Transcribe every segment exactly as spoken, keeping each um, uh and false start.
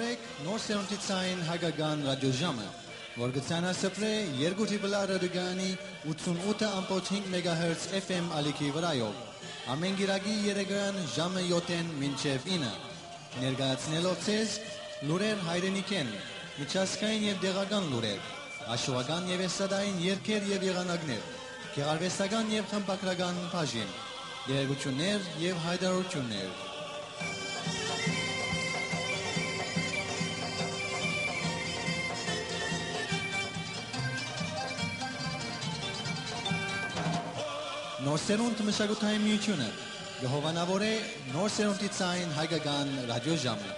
Նոր սերունդի ցային հայկական ռադիոժամը, որ կը ցանասփռէ երկու Տրիպլ Ա ռադիոկայանի ութսուն ութը ամբողջ հինգ մեգահերց F M ալիքի վրայով, ամէն կիրակի երեկոյեան ժամը յոթ մինչեւ ինը, ներկայացնելով ձեզ լուրեր հայրենիքէն, միջազգային եւ տեղական լուրեր, աշուական եւ էստրադային երգեր եւ եղանակներ, գեղարուեստական եւ խմբագրական բաժին, տեղեկութիւններ եւ յայտարարութիւններ։ Նոր սերունդ մշակութային միութիւնը կը հովանաւորէ նոր սերունդի ցային հայկական ռադիոժամը։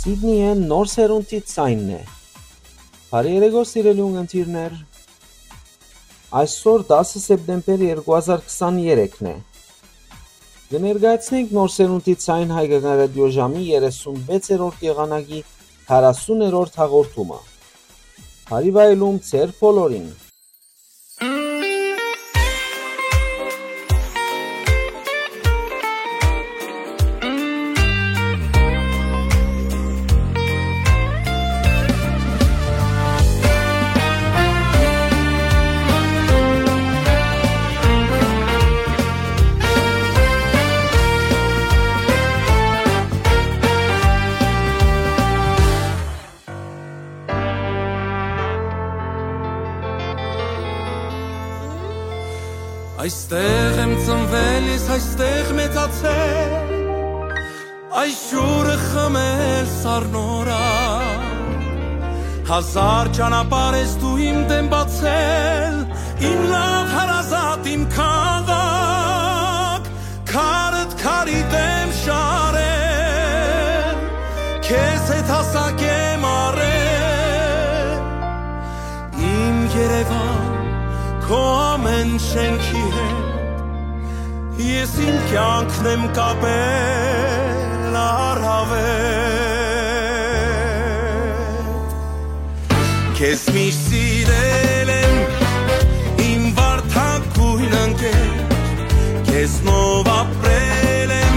Սիդնիէն նոր սերունդի ցայնն է։ Բարի երեկո, սիրելի ունգընտիրներ։ Այսօր դասը սեպտեմբեր երկու հազար քսաներեքն է։ Կը ներկայացնենք նոր սերունդի ցայն հայկական ռադիոժամի երեսունվեցերորդ եղանակի քառասուներորդ հաղորդումը։ Բարի վայելում ձեր բոլորին։ Այստեղ եմ ծնվել ես, այստեղ մեծացել, այս ջուրը խմել սառնորա։ Հազար ճանապարհ ես դու իմ դէմ բացել, իմ լաւ հարազատ, իմ քաղաք, քարդ քարի դէմ շարել, քեզ հետ հասակ եմ առել։ Իմ Երեւան, քո ամէն շէնքի հետ ես իմ կեանքն եմ կապել առաւել։ Քեզ միշտ սիրել եմ, իմ վարդագոյն ընկեր, քեզնով ապրել եմ,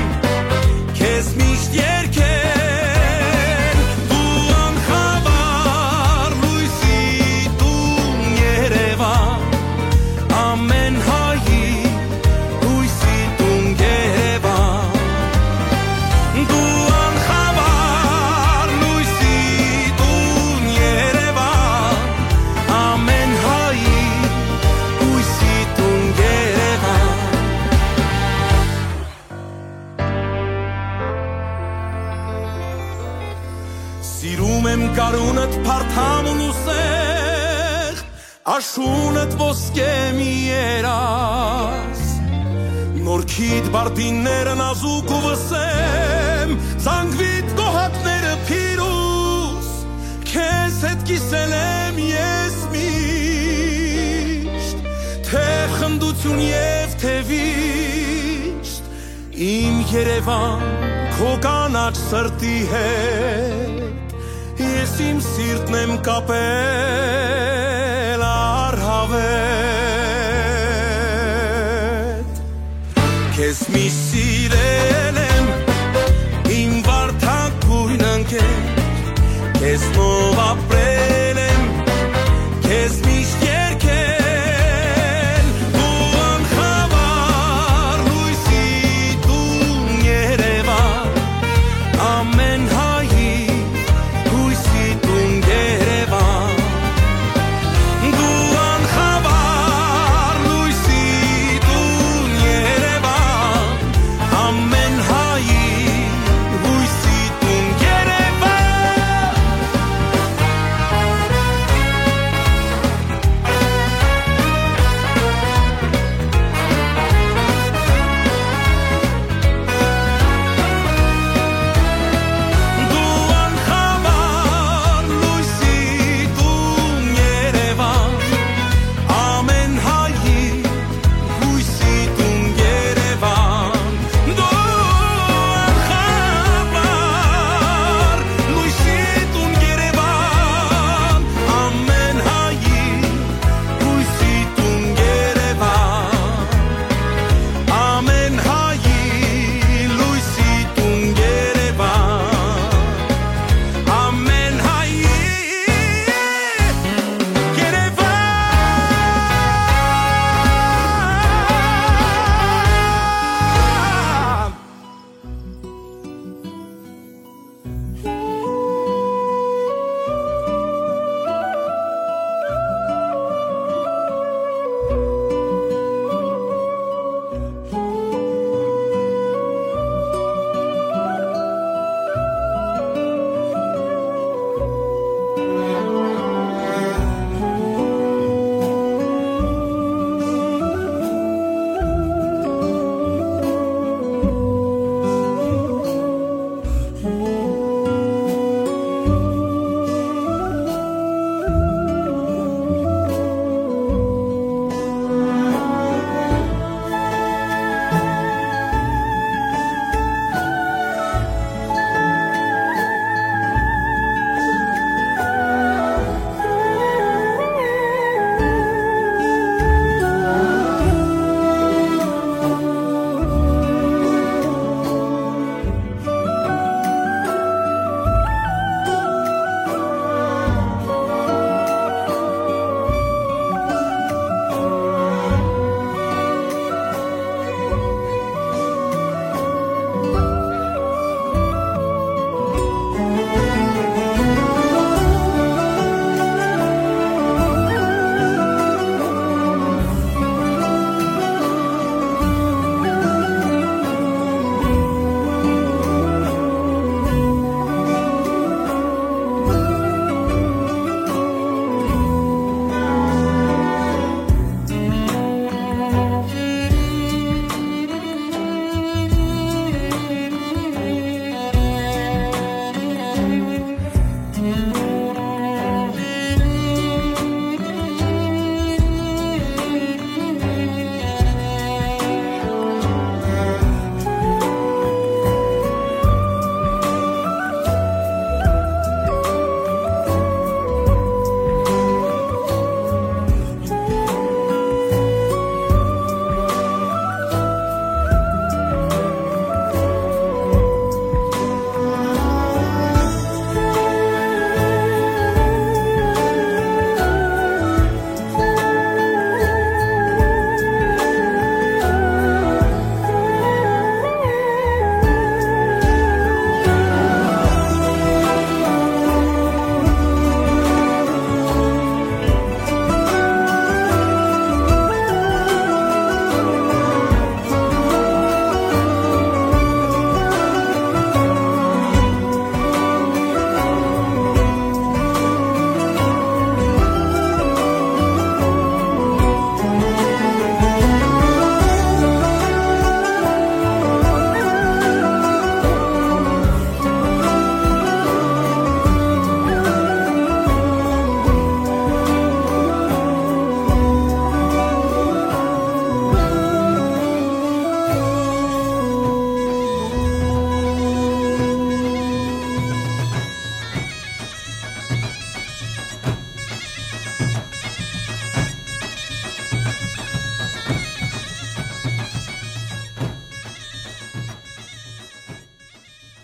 քեզ միշտ երգել, դու անխավար լոյսի տուն Երեւան, ամէն հայի լոյսի տուն Երեւան, դու անխավար լոյսի տուն Երեւան, ամէն հայի լոյսի տուն Երեւան։ Սիրում եմ գարունդ փարթամ ու սեղ, աշունդ ոսկե մի երազ։ Նորքիդ բարդինները նազուկ ու վսեմ, զանգվիդ գոհակները փիրուզ, քեզ հետ կիսել եմ ես միշտ, թէ խնդություն եւ թէ վիշտ, իմ Երեւան, քո կանաչ սրտի հետ ես իմ սիրտն եմ կապել առաւել։ Քեզ միշտ սիրել եմ, իմ վարդագոյն ընկեր, քեզնով ապրել եմ, քեզ միշտ երգել, դու անխավար լոյսի տուն Երեւան, ամէն հայի լոյսի տուն Երեւան, դու անխավար լոյսի տուն Երեւան, ամէն հայի լոյսի տուն Երեւան։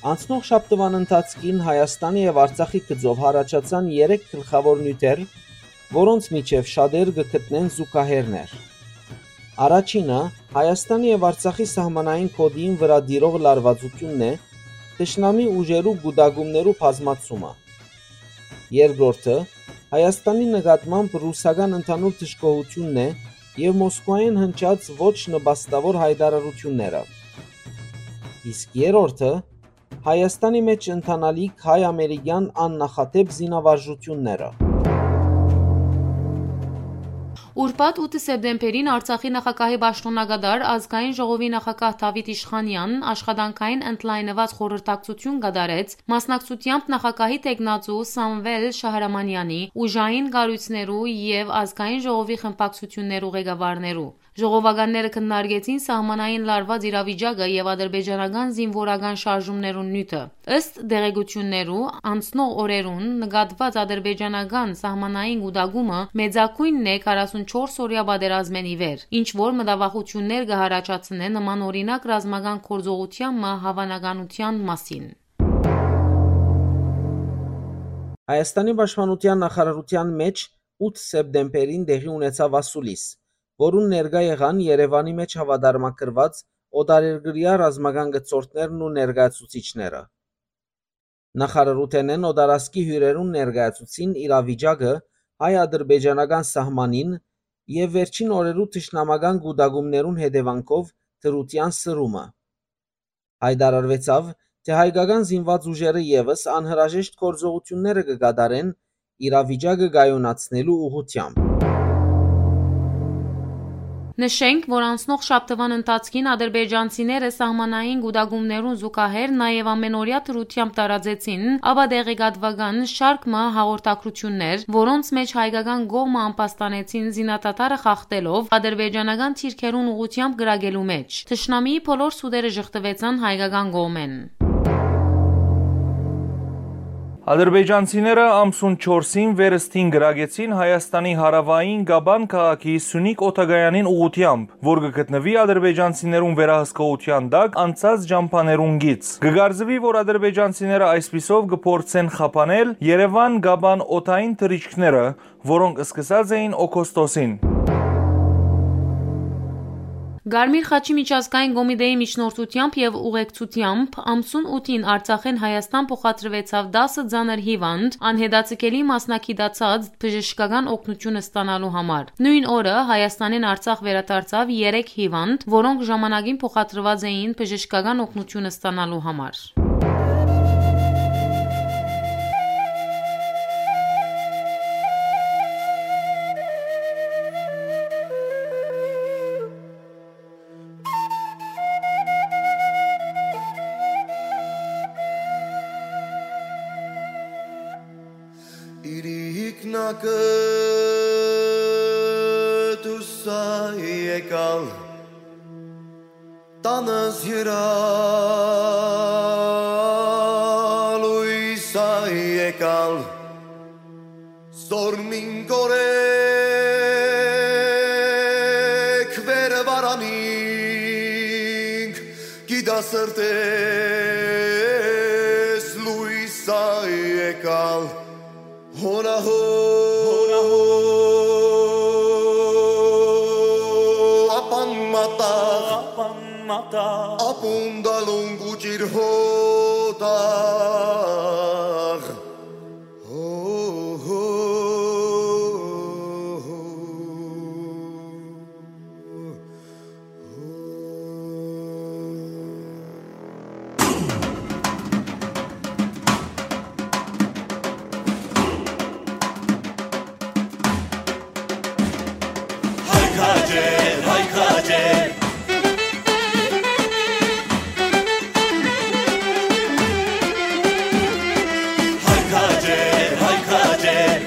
Անցնող շաբթուան ընթացքին Հայաստանի եւ Արցախի գծով յառաջացան երեք գլխաւոր նիւթեր, որոնց միջեւ շատեր կը գտնեն զուգահեռներ։ Առաջինը Հայաստանի եւ Արցախի սահմանային գօտին վրայ տիրող լարուածութիւնն է, թշնամի ուժերու կուտակումներու բազմացումը։ Երկրորդը Հայաստանի նկատմամբ ռուսական ընդհանուր դժգոհութիւնն է եւ Մոսկուայէն հնչած ոչ նպաստաւոր յայտարարութիւնները։ Իսկ երրորդը Հայաստանի մէջ ընթանալիք հայ-ամերիկեան աննախադէպ զինավարժութիւնները։ Ուրբաթ ութ սեպտեմբերին Արցախի նախագահի պաշտօնակատար Ազգային ժողովի նախագահ Դավիթ Իշխանեան աշխատանքային ընդլայնուած խորհրդակցութիւն կատարեց, մասնակցութեամբ նախագահի տեխնացու Սամվել Շահրամանեանի, ուժային կառոյցներու եւ Ազգային ժողովի խմբակցութիւններու ղեկավարներու։ Ժողովականները քննարկեցին սահմանային լարուած իրավիճակը եւ ադրբեջանական զինուորական շարժումներուն նիւթը։ Ըստ տեղեկութիւններու, անցնող օրերուն նկատուած ադրբեջանական սահմանային կուտակումը մեծագոյնն է քառասունչորս օրեայ պատերազմէն ի վեր, ինչ որ մտավախութիւններ կը յառաջացնէ նմանօրինակ ռազմական գործողութեան մը հաւանականութեան մասին։ Հայաստանի պաշտպանութեան նախարարութեան մէջ ութ սեպտեմբերին տեղի ունեցաւ ասուլիս, որուն ներկայ եղան Երեւանի մէջ հաւատարմագրուած օտարերկրեայ ռազմական գծորդներն ու ներկայացուցիչները։ Նախարարութենէն օտարազգի հիւրերուն ներկայացուցին իրավիճակը հայ-ադրբեջանական սահմանին եւ վերջին օրերու թշնամական կուտակումներուն հետեւանքով դրութեան սրումը։ Յայտարարուեցաւ, թէ հայկական զինուած ուժերը եւս անհրաժեշտ գործողութիւնները կը կատարեն իրավիճակը կայունացնելու ուղղութեամբ։ Նշենք, որ անցնող շաբթուան ընթացքին ադրբեջանցիները սահմանային կուտակումներուն զուգահեռ նաեւ ամենօրեայ դրութեամբ տարածեցին, ապա տեղեկատուական շարք մը հաղորդակցութիւններ, որոնց մէջ հայկական կողմը ամբաստանեցին զինադադարը խախտելով ադրբեջանական թիրքերուն ուղղութեամբ կրակելու մէջ։ Թշնամիի բոլոր սուտերը ժխտուեցան հայկական կողմէն։ Ադրբեջանցիները ամսուն չորսին վերստին կրակեցին Հայաստանի հարաւային Կաբան քաղաքի Սունիկ օդակայանին ուղղութեամբ, որ կը գտնուի ադրբեջանցիներուն վերահսկողութեան տակ անցած ճամբաներուն գիծ։ Կը կարծուի, որ ադրբեջանցիները այսպիսով կը փորձեն խափանել Երեւան-Կաբան օդային թռիչքները, որոնք սկսած էին օգոստոսին։ Կարմիր խաչի միջազգային կոմիտեի միջնորդութեամբ եւ ուղեկցութեամբ ամսուն ութին Արցախէն Հայաստան փոխադրուեցաւ տասը ծանր հիւանդ, անհետաձգելի մասնակցացած բժշկական օգնութիւն ստանալու համար։ Նոյն օրը Հայաստանէն Արցախ վերադարձաւ երեք հիւանդ, որոնք ժամանակին փոխադրուած էին բժշկական օգնութիւն ստանալու համար։ Իրիկնակը դուսա եկալ, տանս յրալույս ա եկալ, զորմին կորեկ վեր վարանինք, գիտա սրտես լույս ա եկալ, հոնահո, հոնահո, ապան մատաղ, ապան մատաղ, ապուն դալուն գուճիր հոտաղ։ Հո, հո, հո, հո։ Հայ քաջեր, հայ քաջեր։ Հայ քաջեր, հայ քաջեր։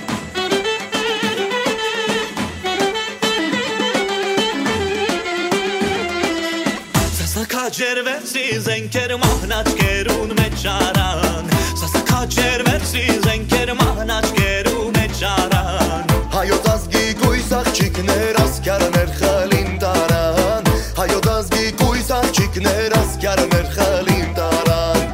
Սասա քաջեր վերցրի զենքեր մահնաճկերուն մեջ առան։ Սասա քաջեր վերցրի զենքեր մահնաճկերու մեջ առան։ Հայոց ազգի կույս աղջիկներ ասկյարներ խլին տարան։ Հայոց ազգի կույս աղջիկներ ասկյարներ խլին տարան։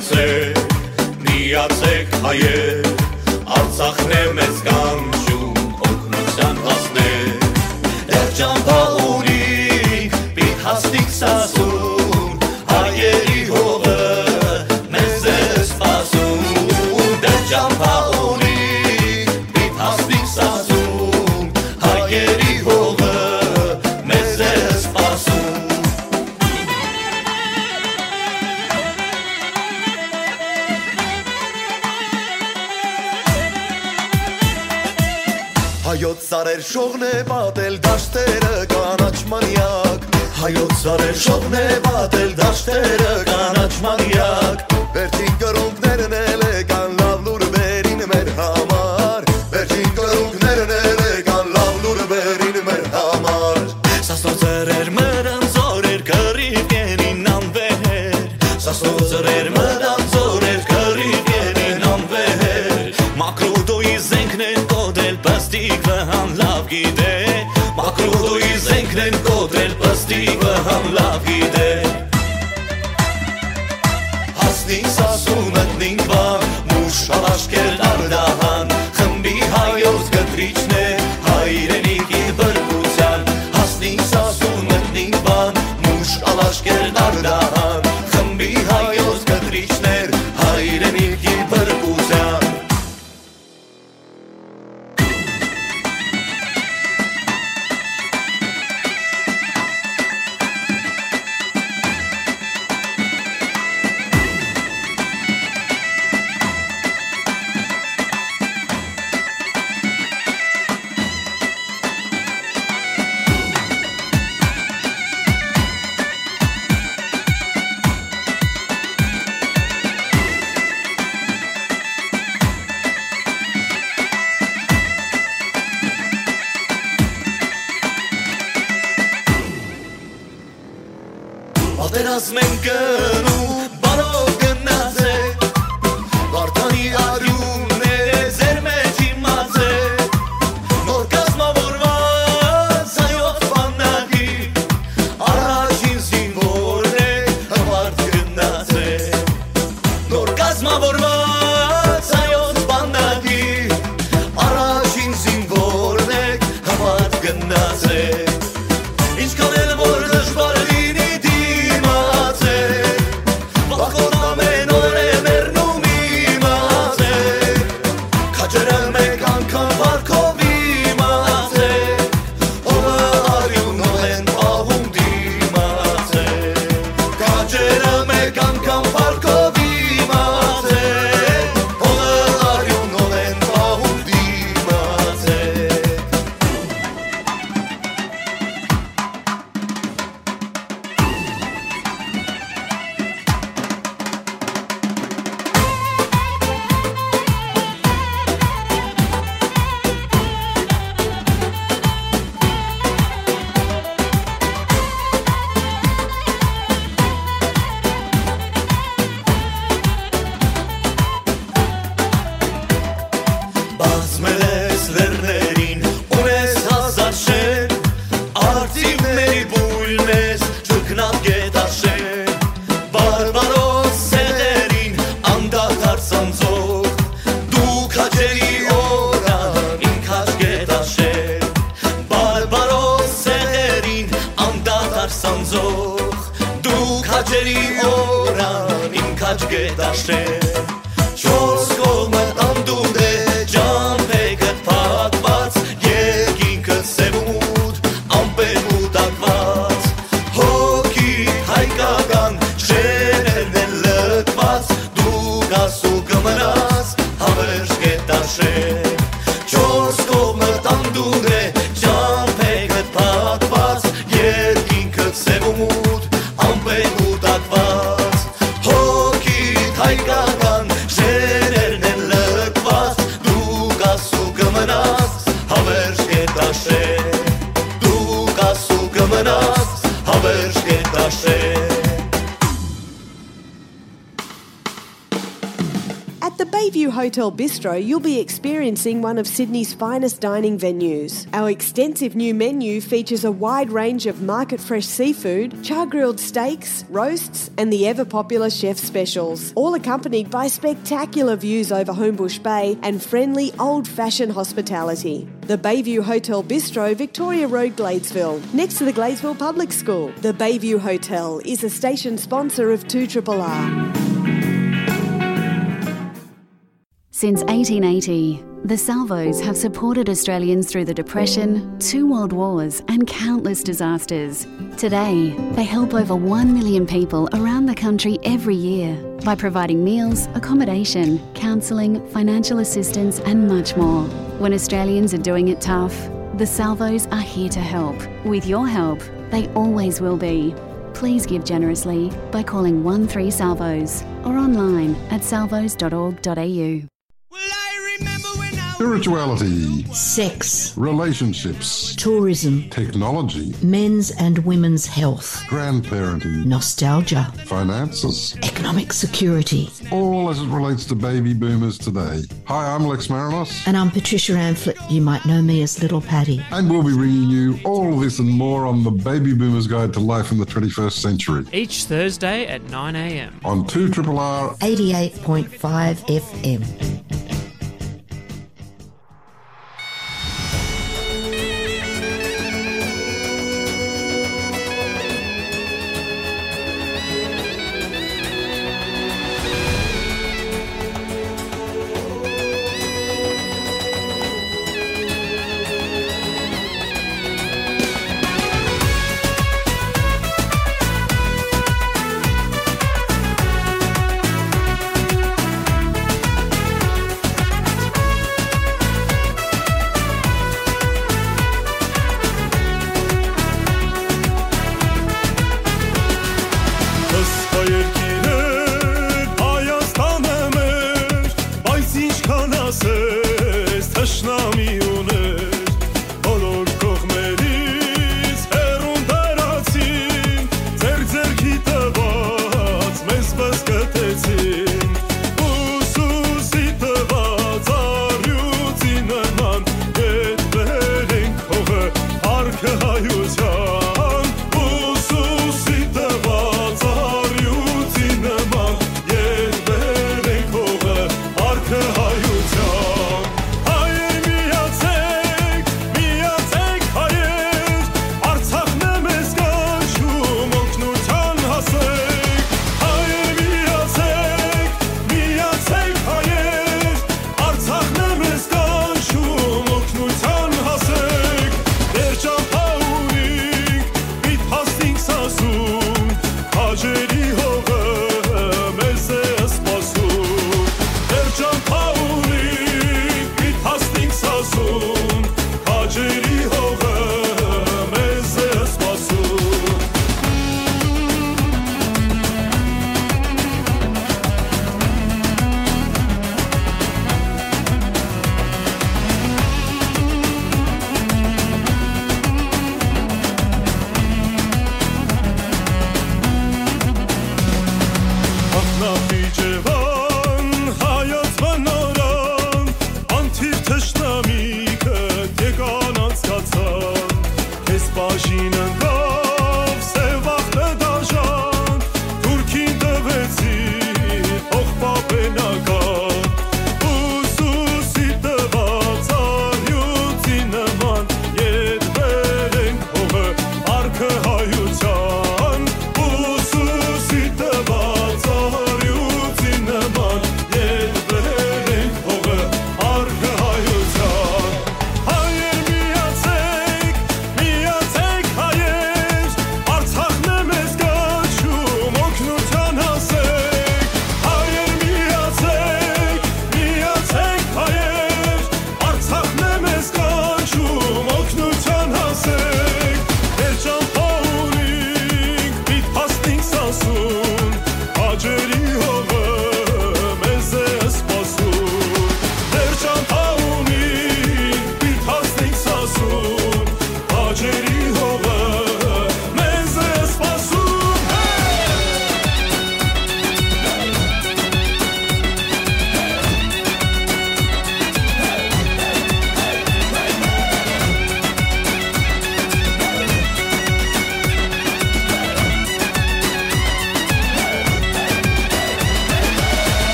Սեր, միացեք հայեր, Արցախն է մեզ կանչում, օգնության հասներ։ Դեռ ճամբայ ունինք, պիտի հասնենք Սասուն, հայերի հողը մեզ է սպասում։ Դեռ ճամբայ ունինք, պիտի հասնենք Սասուն, հայերի հողը մեզ է սպասում։ Հայոց սարեր շողն է պատել, դաշտերը կանաչ մանյակ։ Հայոց սարեր շողն է պատել, դաշտերը կանաչ մանյակ։ Վերջին կռունկներն էլ եկան լաւ լուր բերին մեր համար։ Վերջին կռունկներն էլ եկան լաւ լուր բերին մեր համար։ Սասնոց սրեր մտան զօրեր, կռիվ կենին անվեր։ Սասնոց սրեր մտան զօրեր, կռիվ կենին անվեր։ Մակրուտոյի զենքն են կոտրել, պստիկ վհան լաւ գիտէ։ Մակրուտոյի զենքն են կոտրել, պստիկ վհան լաւ գիտէ։ Հասնին Սասուն, մտնին Վան, մուշ ալաշկեր Արդահան, խմբի հայոց կտրիչն է հայրենիքի բրբության։ Հասնին Սասուն, մտնին Վան, մուշ ալաշկեր Արդահան, խմբի հայոց կտրիչներ հայրենիքի բրբության։ Պատերազմ են գնում, բարով գնացեք։ Վարդանի արիունները ձեր մեջ իմացեք։ Նոր կազմավորված հայոց բանակի առաջին զինվորն է, հպարտ գնացեք։ Նոր կազմավորված հայոց բանակի առաջին զինվորն է, հպարտ գնացեք։ Ինչքան էլ որ դժուար լինի, դիմացեք, վախկոտ ամեն օր է մեռնում, իմացեք, քաջերը մեկ անգամ վարկով իմացեք, օրը արիունով են պահում, դիմացեք, քաջերը մեկ անգամ վարկով իմացեք, օրը արիունով են պահում, դիմացեք։ Բազմել ես լեռներին, ունես հազար շեն, արծիվների բույն ես, չքնապ գետաշեն։ Բարբարոս սեղերին անդադար սանձող, դու քաջերի օրան իմ քաջ գետաշեն։ Բարբարոս սեղերին անդադար սանձող, դու քաջերի օրան իմ քաջ գետաշեն։ Չորս կողմը անդունդ է, ճամբեքդ փակված, երկինքը սեւ ու մութ, ամպերով տակված, հոգիդ հայկական շեներն են լքված, դու կաս ու կմնաս հավերժ գետաշեն։ Չորս կողմը անդունդ է, ճամբեքդ փակված, երկինքը սեւ ու մութ, ամպերով տակված, հոգիդ հայկական շեներն են լքված, դու կաս ու կմնաս հավերժ գետաշեն, դու կաս ու կմնաս հավերժ գետաշեն։ At the Bayview Hotel Bistro, you'll be experiencing one of Sydney's finest dining venues. Our extensive new menu features a wide range of market fresh seafood, char grilled steaks, roasts, and the ever popular chef specials, all accompanied by spectacular views over Homebush Bay and friendly old fashioned hospitality. The Bayview Hotel Bistro, Victoria Road, Gladesville, next to the Gladesville Public School. The Bayview Hotel is a station sponsor of two triple R. Since eighteen eighty, the Salvos have supported Australians through the Depression, two world wars, and countless disasters. Today, they help over one million people around the country every year by providing meals, accommodation, counselling, financial assistance, and much more. When Australians are doing it tough, the Salvos are here to help. With your help, they always will be. Please give generously by calling one three Salvos or online at salvos dot org dot a u. Spirituality, sex, relationships, tourism, technology, men's and women's health, grandparenting, nostalgia, finances, economic security, all as it relates to baby boomers today. Hi, I'm Lex Marinos. And I'm Patricia Amphlett. You might know me as Little Patty. And we'll be bringing you all this and more on the Baby Boomers Guide to Life in the twenty-first Century. Each Thursday at nine a m. On two triple R eighty-eight point five F M.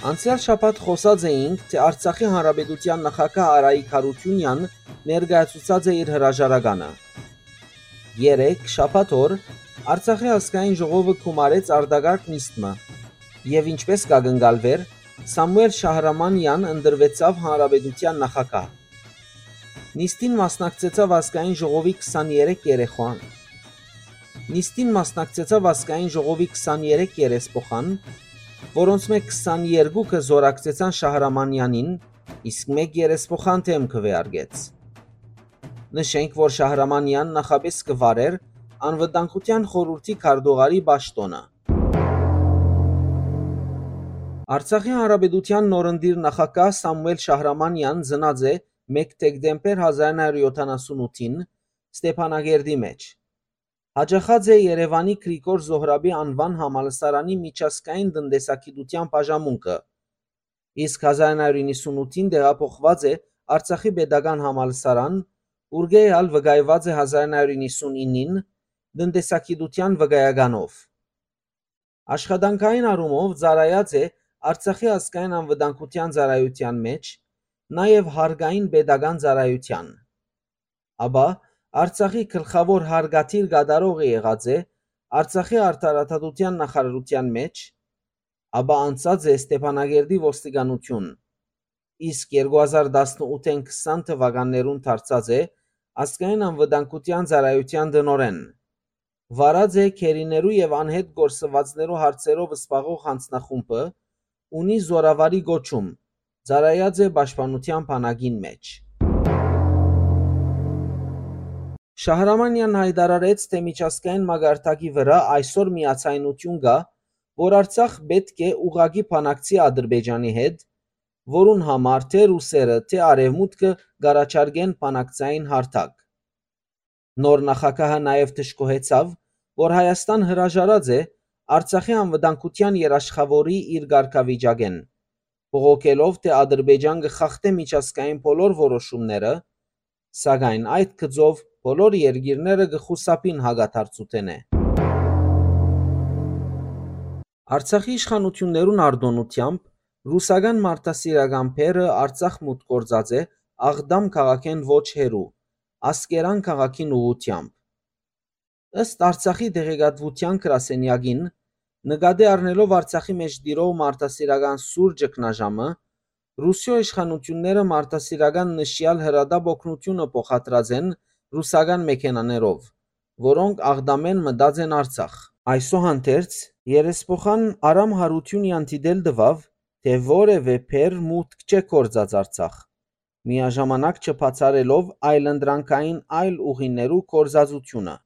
Անցեալ շաբաթ խօսած էինք, թէ Արցախի Հանրապետութեան նախագահ Արայիկ Յարութիւնեան ներկայացուցած է իր հրաժարականը։ Երեկ, շաբաթ օր, Արցախի ազգային ժողովը գումարեց արտակարգ նիստ մը, եւ ինչպէս կ'ակնկալուէր, Սամուէլ Շահրամանեան ընտրուեցաւ Հանրապետութեան նախագահ։ Նիստին մասնակցեցաւ ազգային ժողովի քսաներեք երեխան։ Նիստին մասնակցեցաւ ազգային ժողովի քսաներեք երեսփոխան, որոնցմէ քսաներկուքը զօրակցեցան Շահրամանեանին, իսկ մէկ երեսփոխան դէմ քուէարկեց։ Նշենք, որ Շահրամանեան նախապէս կը վարէր Անվտանգութեան խորհուրդի քարտուղարի պաշտօնը։ Արցախի Հանրապետութեան նորընտիր նախագահ Սամուէլ Շահրամանեան ծնած է մէկ դեկտեմբեր հազար ինը հարիւր յոթանասուն ութին Ստեփանակերտի մէջ։ Յաճախած է Երեւանի Գրիգոր Զոհրաբի անուան համալսարանի միջազգային տնտեսագիտութեան բաժամունքը, իսկ հազար ինը հարիւր իննսուն ութին տեղափոխուած է Արցախի պետական համալսարան, ուրկէ ալ վկայուած է հազար ինը հարիւր իննսուն իննին տնտեսագիտութեան վկայականով։ Աշխատանքային առումով ծառայած է Արցախի ազգային անվտանգութեան ծառայութեան մէջ, նաեւ հարկային պետական ծառայութեան։ Ապա Արցախի գլխաւոր հարկադիր կատարողը եղած է Արցախի արդարադատութեան նախարարութեան մէջ, ապա անցած է Ստեփանակերտի ոստիկանութիւն, իսկ երկու հազար տասնութ քսան թվականներուն դարձած է ազգային անվտանգութեան ծառայութեան տնօրէն։ Վարած է գերիներու եւ անհետ կորսուածներու հարցերով զբաղող յանձնախումբը, ունի զօրավարի կոչում, ծառայած է պաշտպանութեան բանակին մէջ։ Շահրամանեան յայտարարեց, թէ միջազգային մակարդակի վրայ այսօր միաձայնութիւն կայ, որ Արցախ պէտք է ուղղակի բանակցի Ադրբեջանի հետ, որուն համար թէ ռուսերը, թէ արեւմուտքը կ'առաջարկեն բանակցային հարթակ։ Նոր նախագահը նաեւ դժգոհեցաւ, որ Հայաստան հրաժարած է Արցախի անվտանգութեան երաշխաւորի իր կարգավիճակէն, բողոքելով, թէ Ադրբեջան կը խախտէ միջազգային բոլոր որոշումները, սակայն այդ գծով բոլոր երկիրները կը խուսափին հակադարձութենէ։ Արցախի իշխանութիւններուն արտօնութեամբ, ռուսական մարդասիրական բեռը Արցախ մուտք գործած է Աղդամ քաղաքէն ոչ հեռու, Ասկերան քաղաքին ուղղութեամբ։ Ըստ Արցախի տեղեկատվութեան գրասենեակին, նկատի առնելով Արցախի մէջ տիրող մարդասիրական սուր ճգնաժամը, Ռուսիոյ իշխանութիւնները մարդասիրական նշեալ հրատապ օգնութիւնը փոխադրած են ռուսական մեքենաներով, որոնք Աղդամէն մտած են Արցախ։ Այսուհանդերձ, երեսփոխան Արամ Յարութիւնեան դիտել տուաւ, թէ որեւէ բեռ մուտք չէ գործած Արցախ, միաժամանակ չբացառելով այլընտրանքային այլ ուղիներու գործածութիւնը։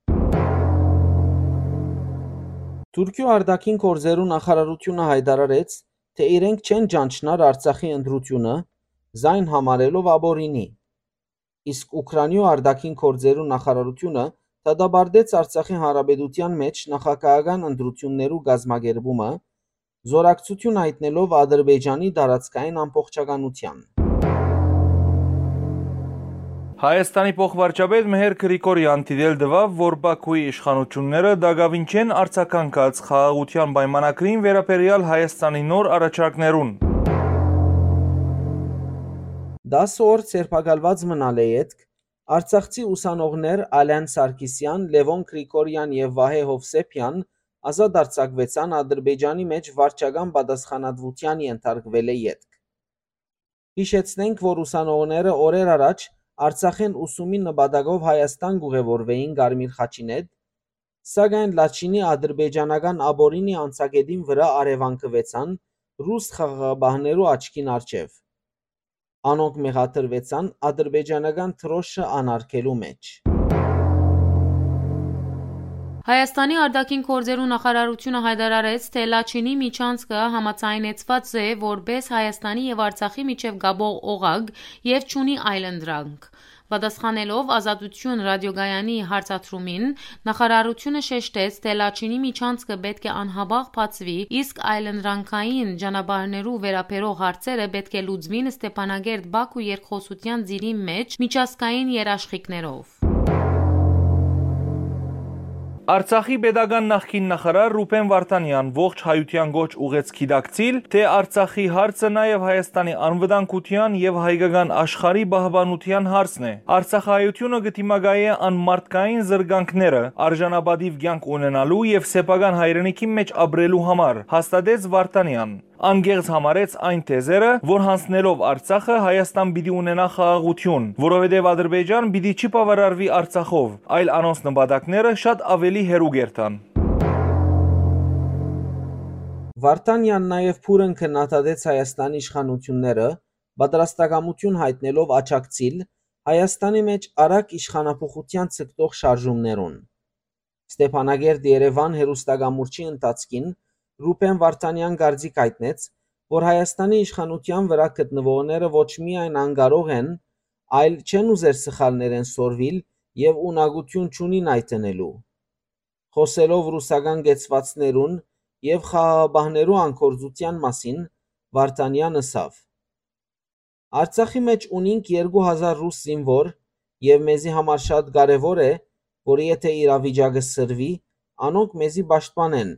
Թուրքիոյ արտաքին գործերու նախարարութիւնը յայտարարեց, թէ իրենք չեն ճանչնար Արցախի ընտրութիւնը, զայն համարելով ապօրինի։ Իսկ Ուքրաինիոյ արտաքին գործերու նախարարութիւնը դատապարտեց Արցախի Հանրապետութեան մէջ նախագահական ընտրութիւններու կազմակերպումը, զօրակցութիւն յայտնելով Ադրբեջանի տարածքային ամբողջականութեան։ Հայաստանի փոխվարչապետ Մհեր Գրիգորեան դիտել տուաւ, որ Բաքուի իշխանութիւնները տակաւին չեն արձագանքած խաղաղութեան պայմանագրին վերաբերեալ Հայաստանի նոր առաջարկներուն։ Տասը օր ձերբակալուած մնալ է ետք, արցախցի ուսանողներ Ալեն Սարգիսեան, Լեւոն Գրիգորեան եւ Վահէ Հովսեփեան ազատ արձակուեցան Ադրբեջանի մէջ վարչական պատասխանատվութեան ենթարկուելէ ետք։ Յիշեցնենք, որ ուսանողները օրեր առաջ Արցախէն ուսումի նպատակով Հայաստան կ'ուղեւորուէին Կարմիր խաչին հետ, սակայն Լաչինի ադրբեջանական ապօրինի անցակետին վրայ առեւանգուեցան ռուս խաղաղապահներու աչքին առջեւ։ Անոնք մեղադրուեցան ադրբեջանական դրոշը անարգելու մէջ։ Հայաստանի արտաքին գործերու նախարարութիւնը յայտարարեց, թէ Լաչինի միջանցքը համաձայնեցուած է որպէս Հայաստանի եւ Արցախի միջեւ կապող օղակ եւ չունի այլընտրանք։ Պատասխանելով Ազատություն ռադիոկայանի հարցադրումին, նախարարութիւնը շեշտեց, թէ Լաչինի միջանցքը պէտք է անհապաղ բացուի, իսկ այլընտրանքային ճանապարհներու վերաբերող հարցերը պէտք է լուծուին Ստեփանակերտ-Բաքու երկխօսութեան ծիրին մէջ միջազգային երաշխիքներով։ Արցախի պետական նախկին նախարար Ռուբեն Վարդանեան ողջ հայութեան կոչ ուղղեց գիտակցիլ, թէ Արցախի հարցը նաեւ Հայաստանի անվտանգութեան եւ հայկական աշխարհի պահպանութեան հարցն է։ Արցախահայութիւնը կը դիմակայէ անմարդկային զրկանքները, արժանապատիվ կեանք ունենալու եւ սեփական հայրենիքի մէջ ապրելու համար, հաստատեց Վարդանեան։ Ան կեղծ համարեց այն թեզերը, որ յանձնելով Արցախը՝ Հայաստան պիտի ունենայ խաղաղութիուն, որովհետեւ Ադրբեջան պիտի չի բաւարարուի Արցախով, այլ անոնց նպատակները շատ աւելի հեռու կ'երթան։ Վարդանեան նաեւ բուռն քննադատեց Հայաստանի իշխանութիւնները՝ պատրաստակամութիւն յայտնելով աջակցիլ Հայաստանի մէջ արագ իշխանափոխութեան ձգտող շարժումներուն։ Ստեփանակերտ-Երեւան հեռուստակամուրջի ընթացքին Ռուբեն Վարդանեան կարծիք յայտնեց, որ Հայաստանի իշխանութեան վրայ գտնուողները ոչ միայն անկարող են, այլ չեն ուզեր սխալներէն սորվիլ եւ ունակութիւն չունին այդ ընելու։ Խօսելով ռուսական կեցուածներուն եւ խաղաղապահներու անկորձութեան մասին, Վարդանեան ըսաւ. «Արցախի մէջ ունինք երկու հազար ռուս զինուոր եւ մեզի համար շատ կարեւոր է, որ եթէ իրավիճակը սրվի, անոնք մեզի պաշտպանեն,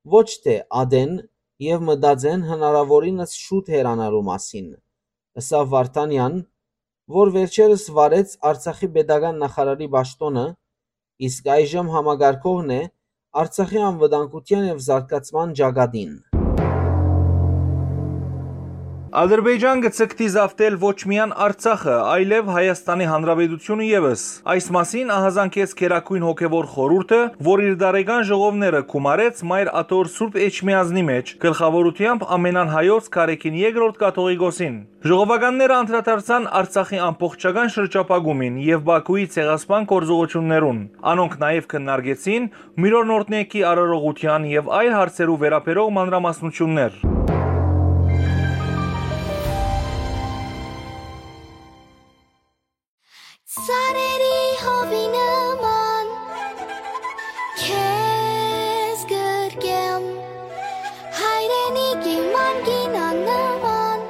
ոչ թէ ատեն եւ մտածեն հնարաւորինս շուտ հեռանալու մասին», ըսաւ Վարդանեան, որ վերջերս վարեց Արցախի պետական նախարարի պաշտօնը, իսկ այժմ համակարգողն է Արցախի անվտանգութեան եւ զարգացման ճակատին։ Ադրբեջան կը ձգտի զավթել ոչ միայն Արցախը, այլեւ Հայաստանի Հանրապետութիւնը եւս։ Այս մասին ահազանգեց Գերագոյն Հոգեւոր Խորհուրդը, որ իր տարեկան ժողովները գումարեց Մայր Աթոռ Սուրբ Էջմիածնի մէջ, գլխաւորութեամբ ամենան հայոց Գարեգին Երկրորդ Կաթողիկոսին։ Ժողովականները անդրադարձան Արցախի ամբողջական շրջափակումին եւ Բաքուի ցեղասպան գործողություններուն։ Անոնք նաեւ քննարկեցին Միրոնորտնեկի արարողութեան եւ այլ հարցերու վերաբերող մանրամասնություններ։ Ծառերի հովի նման քեզ գրկեմ, հայրենիքի մանկին աննման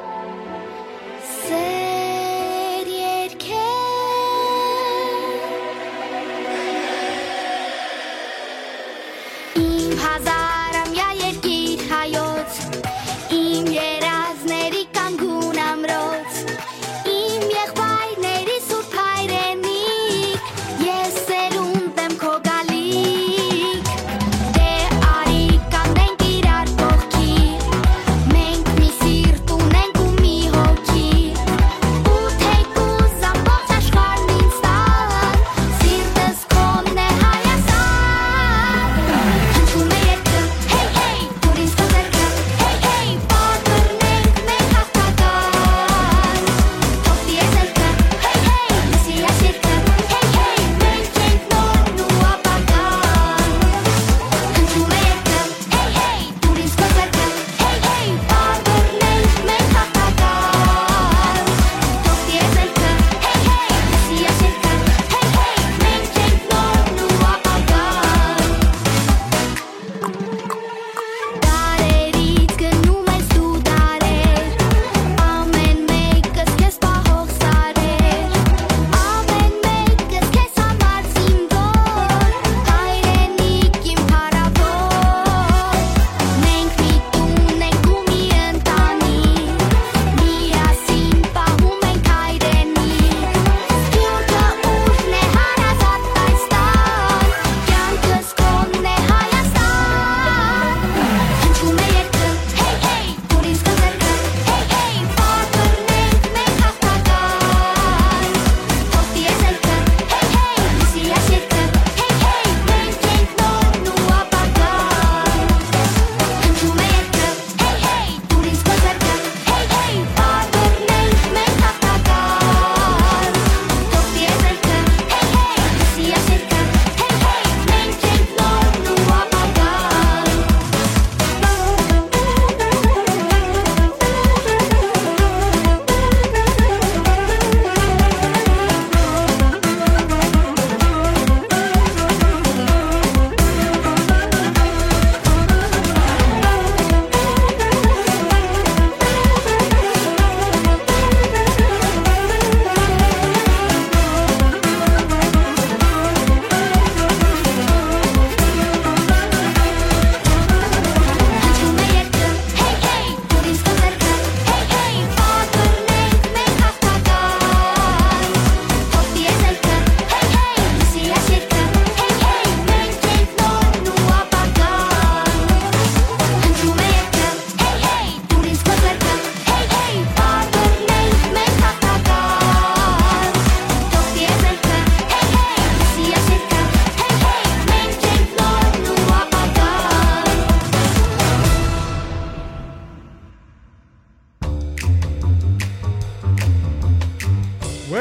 սեր երկեմ։ Իմ հազարամյա երկիր հայոց, իմ երազների կանգուն ամրոց, իմ եղբայրների սուրբ հայրենիք, ես սերունդ եմ քո գալիք։ Դե արի կանգնենք իրար կողքի,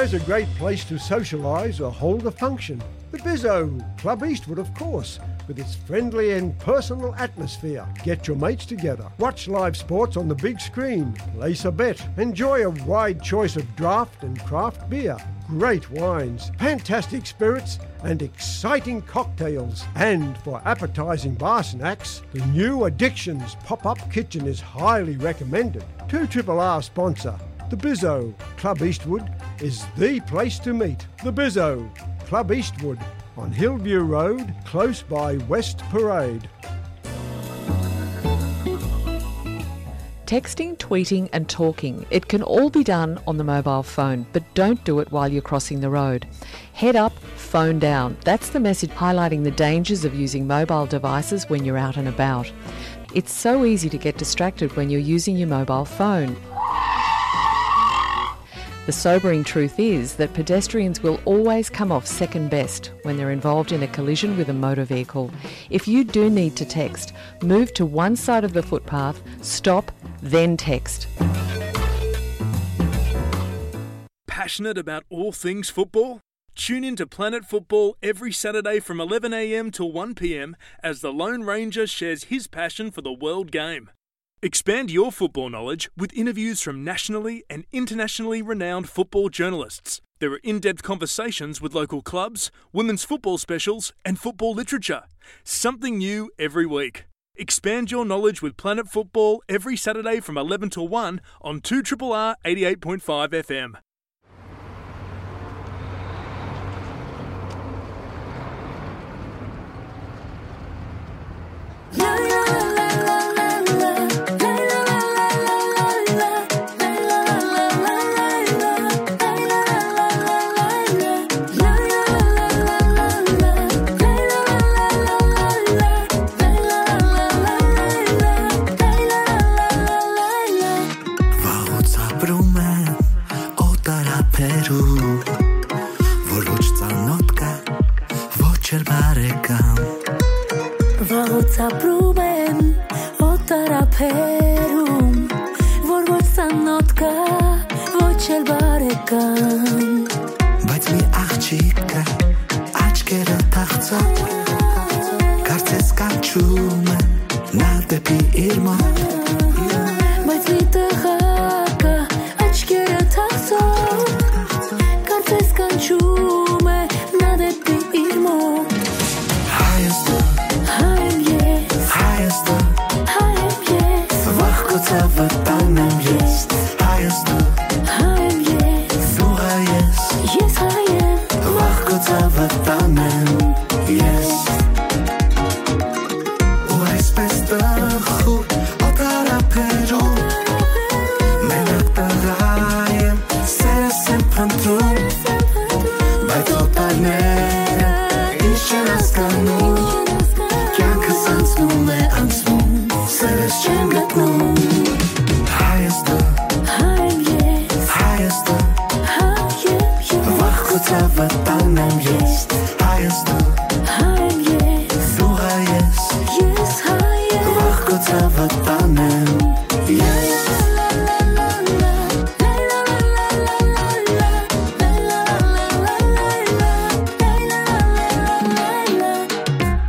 It's a great place to socialise or hold a function. The Bizzo, Club Eastwood, of course, with its friendly and personal atmosphere. Get your mates together, watch live sports on the big screen, place a bet, enjoy a wide choice of draft and craft beer, great wines, fantastic spirits, and exciting cocktails. And for appetising bar snacks, the new Addictions pop-up kitchen is highly recommended. Two Triple R sponsor, the Bizzo. Club Eastwood is the place to meet. The Bizzo, Club Eastwood, on Hillview Road, close by West Parade. Texting, tweeting, and talking. It can all be done on the mobile phone, but don't do it while you're crossing the road. Head up, phone down. That's the message highlighting the dangers of using mobile devices when you're out and about. It's so easy to get distracted when you're using your mobile phone. The sobering truth is that pedestrians will always come off second best when they're involved in a collision with a motor vehicle. If you do need to text, move to one side of the footpath, stop, then text. Passionate about all things football? Tune in to Planet Football every Saturday from eleven a m to one p m as the Lone Ranger shares his passion for the world game. Expand your football knowledge with interviews from nationally and internationally renowned football journalists. There are in-depth conversations with local clubs, women's football specials, and football literature. Something new every week. Expand your knowledge with Planet Football every Saturday from eleven to one on two triple R eighty-eight point five F M. Վաղուց ապրում են օտար ափերում, որ ոչ ծանոթ կա, ոչ էլ բարեկամ։ Վաղուց ապրում են օտար ափերում, որ ոչ ծանոթ կա, ոչ էլ բարեկամ։ Բայց մի աղջիկ կա, աչքերը թախծող, կարծես կանչում է նա դեպի իր մոտ։ Բայց մի տղա կա, աչքերը թախծող, կարծես կանչում է նա դեպի իր մոտ։ Հայ ես դու, հայ եմ ես, հայ ես դու, հայ եմ ես, վաղ քո ցավը տանեմ ես։ Հայ ես դու, հայ եմ ես, դու հայ ես, ես հայ եմ, վաղ քո ցավը տանեմ ես։ Ու այսպես տխուր օտար ափերում, մենակ տղա եմ, սերս եմ փնտրում, բայց օտարները ինչ չեն հասկանում, կյանքս անցնում է, անցնում, սերս չեմ գտնում։ Հայ ես դու, հայ եմ ես, հայ ես դու, հայ եմ ես, վաղ քո ցավը տանեմ ես։ Հայ ես դու, հայ եմ ես, դու հայ ես, ես հայ եմ, վաղ քո ցավը տանեմ ես։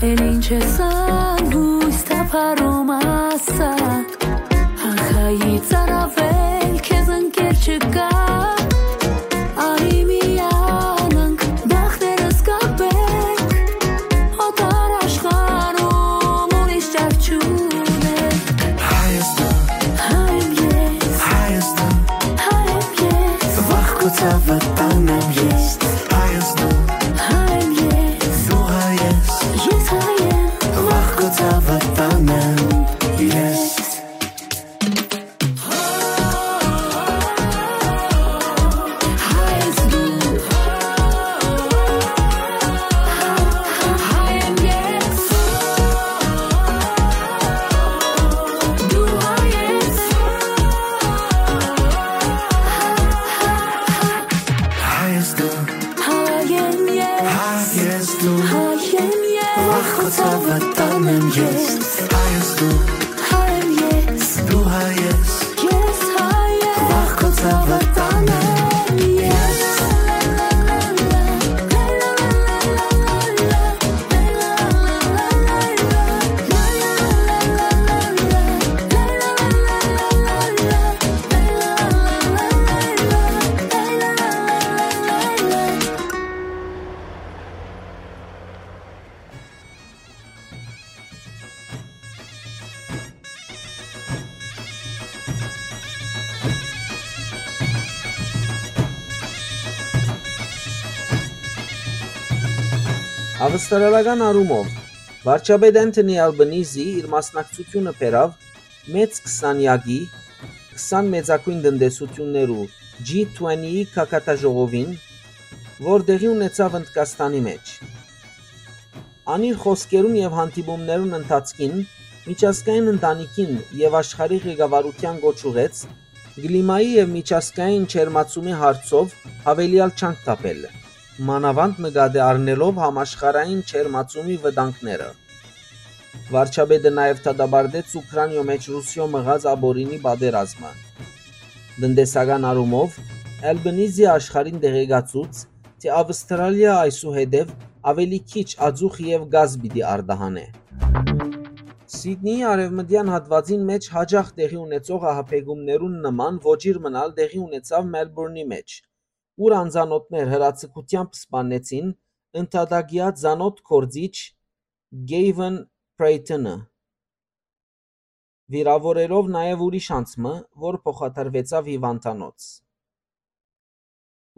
Էլ ինչ ես անհույս թափառում, ասա, ահայի ծարավել քեզ ընկեր չկա, արի միանանք, բախտերս կապենք, օտար աշխարհում ուրիշ ճար չունենք։ Հայ ես դու, հայ եմ ես, հայ ես դու, հայ եմ ես, վաղ քո ցավը տանեմ ես։ Հայ ես դու, հայ եմ ես, դու հայ ես, ես հայ եմ, վաղ քո ցավը տանեմ ես։ Հայ ես դու, հայ եմ ես, հայ ես դու, հայ եմ ես, վաղ քո ցավը տանեմ ես։ Հայ ես դու, հայ եմ ես, դու հայ ես, ես հայ եմ, վաղ քո ցավը տանեմ ես։ Ավստրալական առումով, վարչապետ Անթոնի Ալբանիզի իր մասնակցությունը բերաւ մեծ քսանեակի, քսան մեծագոյն տնտեսութիւններու G twenty-ի գագաթաժողովին, որ տեղի ունեցաւ Ընդկաստանի մէջ։ Ան իր խօսքերուն եւ հանդիպումներուն ընթացքին միջազգային ընտանիքին եւ աշխարհի ղեկավարութեան կոչ ուղղեց կլիմայի եւ միջազգային ջերմացումի հարցով յաւելեալ ջանք թափել, մանաւանդ նկատի առնելով համաշխարհային ջերմացումի վտանգները։ Վարչապետը նաեւ դատապարտեց Ուքրանիոյ մէջ Ռուսիոյ մղած ապօրինի պատերազմը։ Տնտեսական առումով, Ալբանիզի աշխարհին տեղեկացուց, թէ Ավստրալիա այսուհետեւ աւելի քիչ ածուխ եւ գազ պիտի արտահանէ։ Սիդնիի արեւմտեան հատուածին մէջ յաճախ տեղի ունեցող ահաբեկումներուն նման ոճիր մըն ալ տեղի ունեցաւ Մելբուրնի մէջ, ուր անծանօթներ հրաձգութեամբ սպաննեցին ընդհատակեայ ծանօթ գործիչ Գեյվեն Պրեյթոնը, վիրաւորելով նաեւ ուրիշ անձ մը, որ փոխադրուեցաւ հիւանդանոց։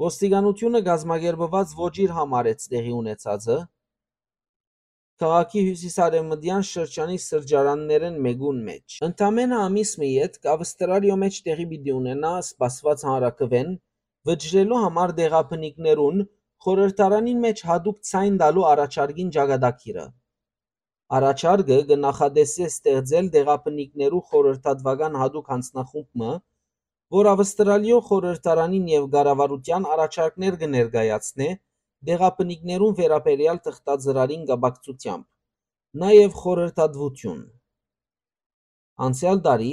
Ոստիկանութիւնը կազմակերպուած ոճիր համարեց տեղի ունեցածը քաղաքի հիւսիսարեւմտեան շրջանի սրճարաններէն մէկուն մէջ։ Ընդամէնը ամիս մը ետք Ավստրալիոյ մէջ տեղի պիտի ունենայ սպասուած հանրաքուէն վճռելու համար տեղաբնիկներուն խորհրդարանին մէջ յատուկ ձայն տալու առաջարկին ճակատագիրը։ Առաջարկը կը նախատեսէ ստեղծել տեղաբնիկներու խորհրդատուական յատուկ յանձնախումբ մը, որ Ավստրալիոյ խորհրդարանին եւ կառավարութեան առաջարկներ կը ներկայացնէ տեղաբնիկներուն վերաբերեալ թղթածրարին կապակցութեամբ, նաեւ խորհրդատուութիւն։ Անցեալ տարի,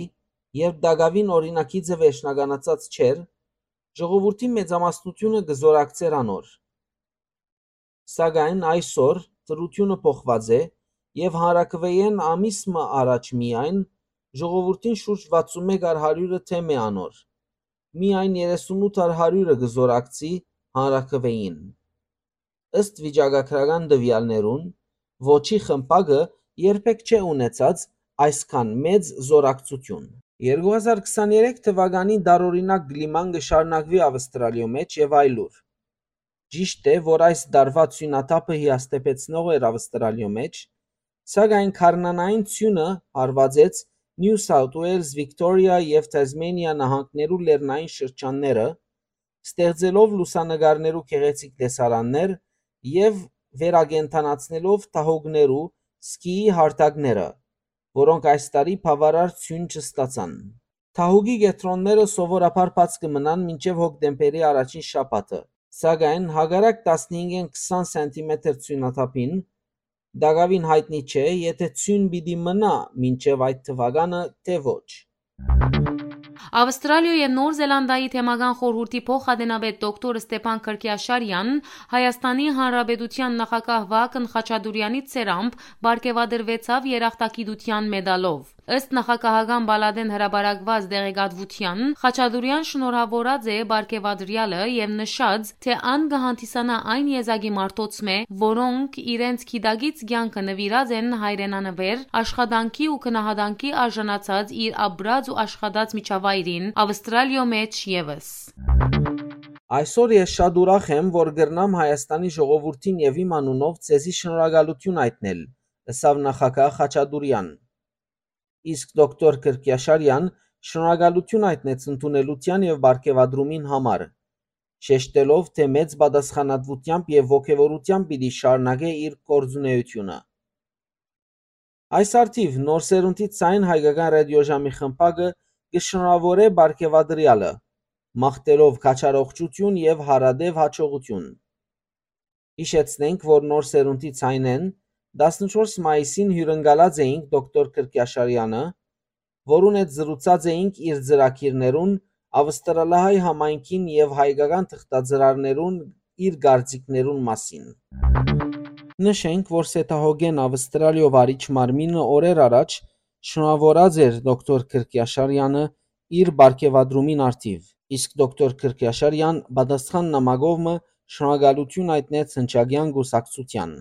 երբ տակաւին օրինագիծը վերջնականացած չէր, ժողովուրդի մեծամասնութիւնը կը զօրակցէր անոր։ Սակայն այսօր դրութիւնը փոխուած է եւ հանրաքուէէն ամիս մը առաջ միայն ժողովուրդին շուրջ վաթսուն մէկ առ հարիւրը դէմ է անոր։ Միայն երեսունութ առ հարիւրը կը զօրակցի հանրաքուէին։ Ըստ վիճակագրական տուեալներուն, ոճի խմբակը երբեք չէ ունեցած այսքան մեծ զօրակցութիւն։ Երկու հազար քսաներեք թուականին տարօրինակ կլիման կը շարունակուի Ավստրալիոյ մէջ եւ այլուր։ Ճիշդ է, որ այս տարուայ ցոյնաթափը հիասթափեցնող էր Ավստրալիոյ մէջ, սակայն գարնանային ցոյնը հարուածեց New South Wales, Victoria եւ Tasmania նահանգներու լեռնային շրջանները, ստեղծելով լուսանկարներու գեղեցիկ տեսարաններ եւ վերակենդանացնելով դահուկներու սկիի հարթակները, որոնք այս տարի բաւարար ցոյն չստացան։ Դահուկի կեդրոնները սովորաբար բաց կը մնան մինչեւ հոկտեմբերի առաջին շաբաթը, սակայն հակառակ տասնհինգէն քսան սենտիմետր ցոյնաթափին, տակաւին յայտնի չէ, եթէ ցոյն պիտի մնայ մինչեւ այդ թուականը, թէ ոչ։ Ավստրալիոյ եւ Նոր Զելանդիայի թեմական խորհուրդի փոխատենապետ դոկտոր Ստեփան Քրկիաշարյան Հայաստանի Հանրապետութեան նախագահ Վահագն Խաչատուրեանի ձեռամբ պարգեւատրուեցաւ երախտագիտութեան մեդալով։ Ըստ նախագահական պալատէն հրապարակուած տեղեկատվութեան, Խաչատուրեան շնորհաւորած է պարգեւատրեալը եւ նշած, թէ ան կը հանդիսանայ այն եզակի մարդոց մէ, որոնք իրենց գիտակից կեանքը նուիրած են հայրենանուէր, աշխատանքի ու գնահատանքի արժանացած իր ապրած ու աշխատած միջավայրին, Ավստրալիոյ մէջ եւս։ Այսօր ես շատ ուրախ եմ, որ կրնամ Հայաստանի ժողովուրդին եւ իմ անունով ձեզի շնորհակալութիւն այդնել, ըսաւ նախագահ Խաչատուրեան։ Իսկ դոկտոր Քրկիաշարեան շնորհակալութիւն հայտնեց ընդունելութեան եւ պարգեւատրումին համար, շեշտելով, թէ մեծ պատասխանատուութեամբ եւ ոգեւորութեամբ պիտի շարունակէ իր գործունէութիւնը։ Այս առթիւ Նոր սերունդի ձայն հայկական ռադիոժամի խմբակը կը շնորհաւորէ պարգեւատրեալը, մաղթելով քաջառողջութիւն եւ հարատեւ յաջողութիւն։ Յիշեցնենք, որ Նոր սերունդի ձայնէն տասնչորս մայիսին հիւրընկալած էինք դոկտոր Քրկիաշարեանը, որուն հետ զրուցած էինք իր ծրագիրներուն, ավստրալահայ համայնքին եւ հայկական թղթածրարներուն իր կարծիքներուն մասին։ Նշենք, որ Սեթահոգեն Ավստրալիոյ վարիչ մարմինը օրեր առաջ շնորհաւորած էր դոկտոր Քրկիաշարեանը իր պարգեւատրումին առթիւ, իսկ դոկտոր Քրկիաշարեան պատասխան նամակով մը շնորհակալութիւն հայտնեց հնչակեան կուսակցութեան։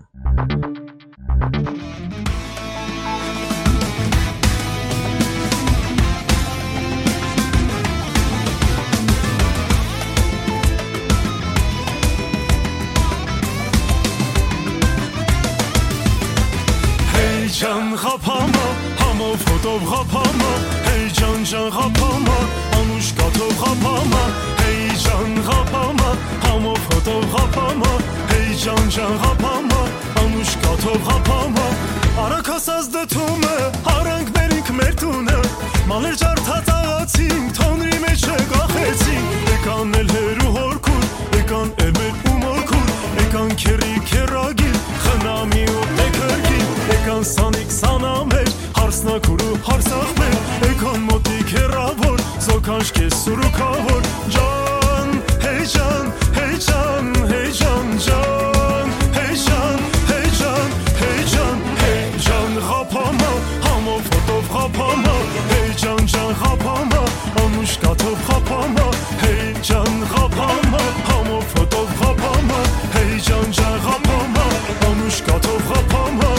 Ղափամա, հեյ ջան ջան ղափամա, անուշ կաթով ղափամա, հեյ ջան ղափամա, համով հոտով ղափամա, հեյ ջան ջան ղափամա, անուշ կաթով ղափամա։ Արագ հասած դդումը, արանք մերինք մեր տունը, մալեր ջարդած աղացինք, թոնրի մեջ կախեցինք, եկան էլ հերու հորքուր, եկան էլ մեր ու մորքուր, եկան քերրի քերագին, խնամի ու տեքերգին, եկան սանիկ սանամեր, հարսնակուր ու հարսախմեր, եկան մոտիկ հեռաւոր, զոքանչ կես սուրուքաւոր, ջան, հեյ ջան, հեյ ջան, հեյ ջան, ջան, հեյ ջան, հեյ ջան, հեյ ջան, հեյ ջան, ղափամա, համով հոտով ղափամա, հեյ ջան ջան ղափամա, անուշ կաթով ղափամա, հեյ ջան ղափամա, համով հոտով ղափամա, հեյ ջան ջան ղափամա, անուշ կաթով ղափամա։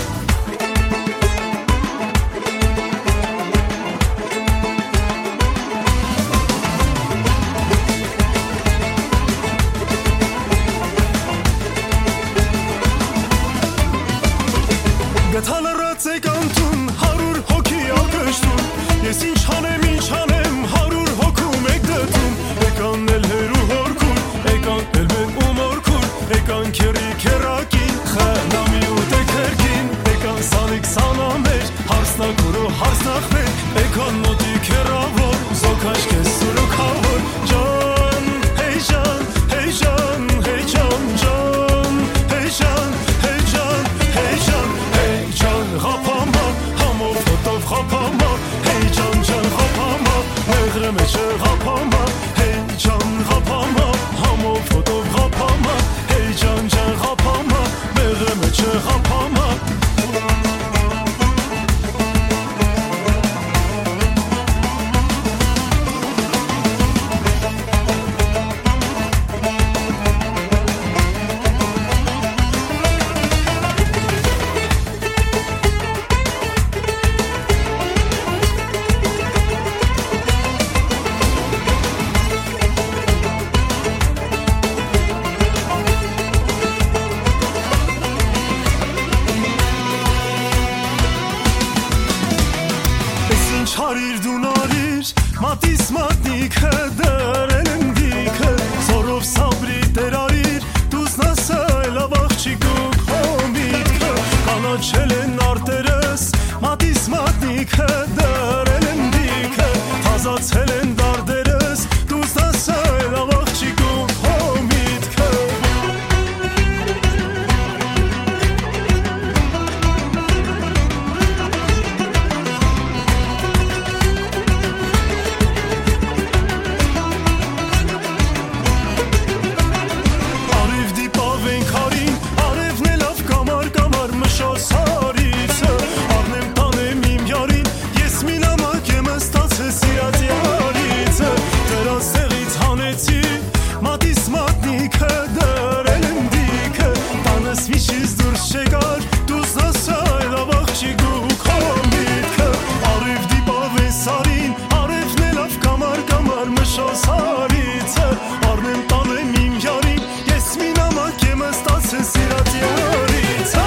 Գթա լռած եք անտուն, հարյուր հոգի ակշտուն, ես ինչ անեմ, ինչ անեմ, հարյուր հոգու մէկ դդում, եկան էլ հերու հորքուր, եկան էլ մեր ու մորքուր, եկան քերրի քերակին, խնամի ու տեքերգին, եկան սանիկ սանամեր, հարսնակուր ու հարսնախմեր, եկան մոտիկ հեռաւոր, զոքաշ կես սուրուքաւոր, ջան, հեյ ջան, հեյ ջան, հեյ ջան, ջան, հեյ ջան, հեյ ջան, հեյ ջան, հեյ ջան, ղափամա, համով հոտով ղափամա, հեյ ջան, ջան, ղափամա, մեղրը մեջը ղափամա, հեյ ջան, ղափամա, համով հոտով ղափամա, հեյ ջան, ջան, ղափամա, մեղրը մեջը ղափամա։ Ես ինչ արիր դուն արիր, մատիս մատնիքը դրել եմ դիքը, զորով սաբրի տեր արիր, դուզնաս այլ աղջիկ ու քո միտքը, կանաչել են արտերս, մատիս մատնիքը դրել են դիքը, թազացել են դարդերս, դուզնաս այլ աղջիկ ու քո միտքը։ Արեւ դիպաւ ենք հարին, արեւն է լաւ կամար, կամար մշոս հարիցը, առնեմ տանեմ իմ յարին, ես մի նամակ եմ ըստացել սիրած յարիցը, դրան սեղից հանեցի, մատիս մատնիքը դրել եմ դիքը, տանս միշից դուրս չեկար, դուզնաս այլ աղջիկ ու քո միտքը, արեւ դիպաւ է սարին, արեւն է լաւ կամար, կամար մշոս հարիցը, առնեմ տանեմ իմ յարին, ես մի նամակ եմ ըստացել սիրած յարիցը։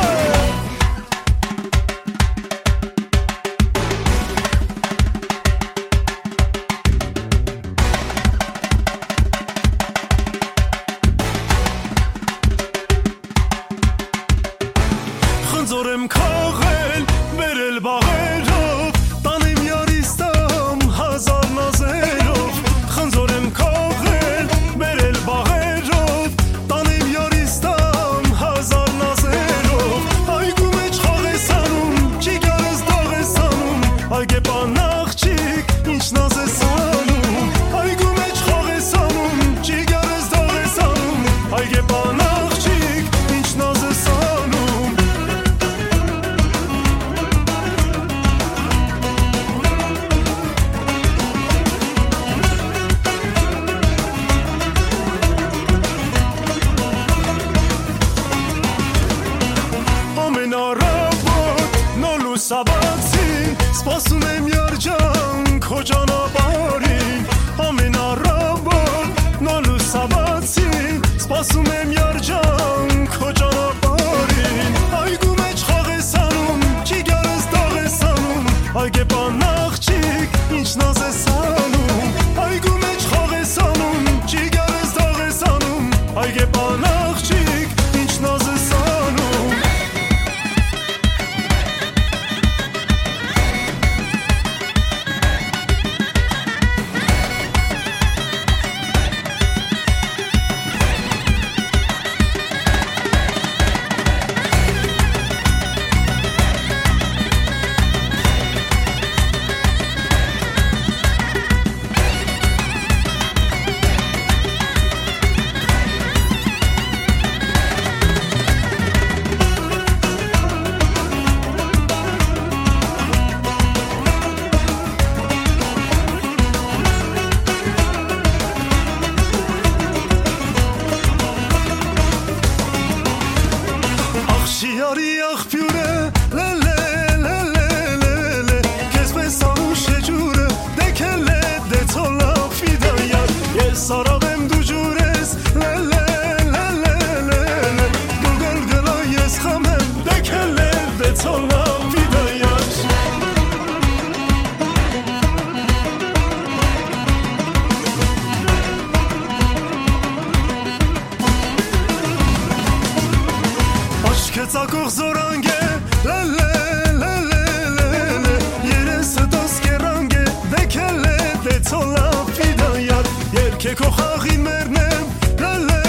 Քո խաղին մերն եմ, լե, լե,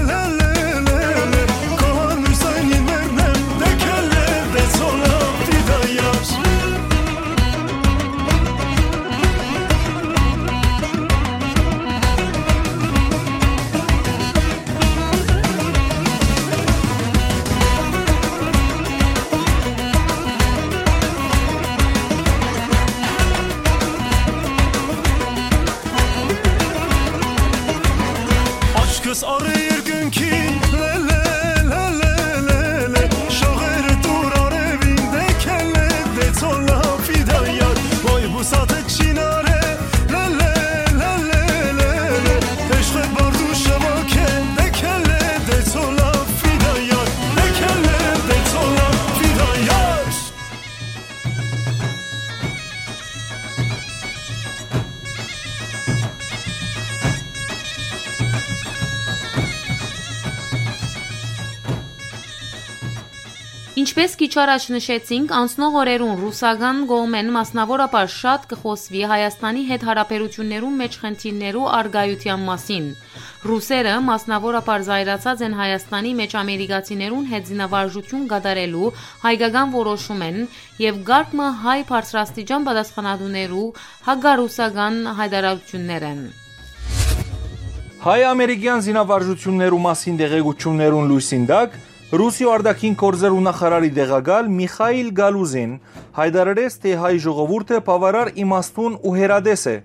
լե, լե, լե, լե, քո հանրուսային մերն եմ, դե քելլե, դե ցոլա, ֆիդայար։ Աչքս առ երկնքին, լե, լե, լե, լե, լե, լե, շողերը տուր արևին, դե քելլե, դե ցոլա, ֆիդայար, ոյ բուսատը չինարե, լե, լե, լե, լե, լե, լե, հեշտը բարդու շվոքե, դե քելլե, դե ցոլա, ֆիդայար, դե քելլե, դե ցոլա, ֆիդայար։ Ինչպէս քիչ առաջ նշեցինք, անցնող օրերուն ռուսական կողմէն մասնաւորաբար շատ կը խօսուի Հայաստանի հետ յարաբերութիւններուն մէջ խնդիրներու առկայութեան մասին։ Ռուսերը մասնաւորաբար զայրացած են Հայաստանի մէջ ամերիկացիներուն հետ զինավարժութիւն կատարելու հայկական որոշումէն եւ կարգ մը հայ բարձրաստիճան պատասխանատուներու հակառուսական յայտարարութիւններ են։ Հայ-ամերիկեան զինավարժութիւններու մասին տեղեկութիւններուն լոյսին տակ, Ռուսիոյ արտաքին գործերու նախարարի տեղակալ Միխայիլ Գալուզին յայտարարեց, թէ հայ ժողովուրդը բաւարար իմաստուն ու հեռատես է,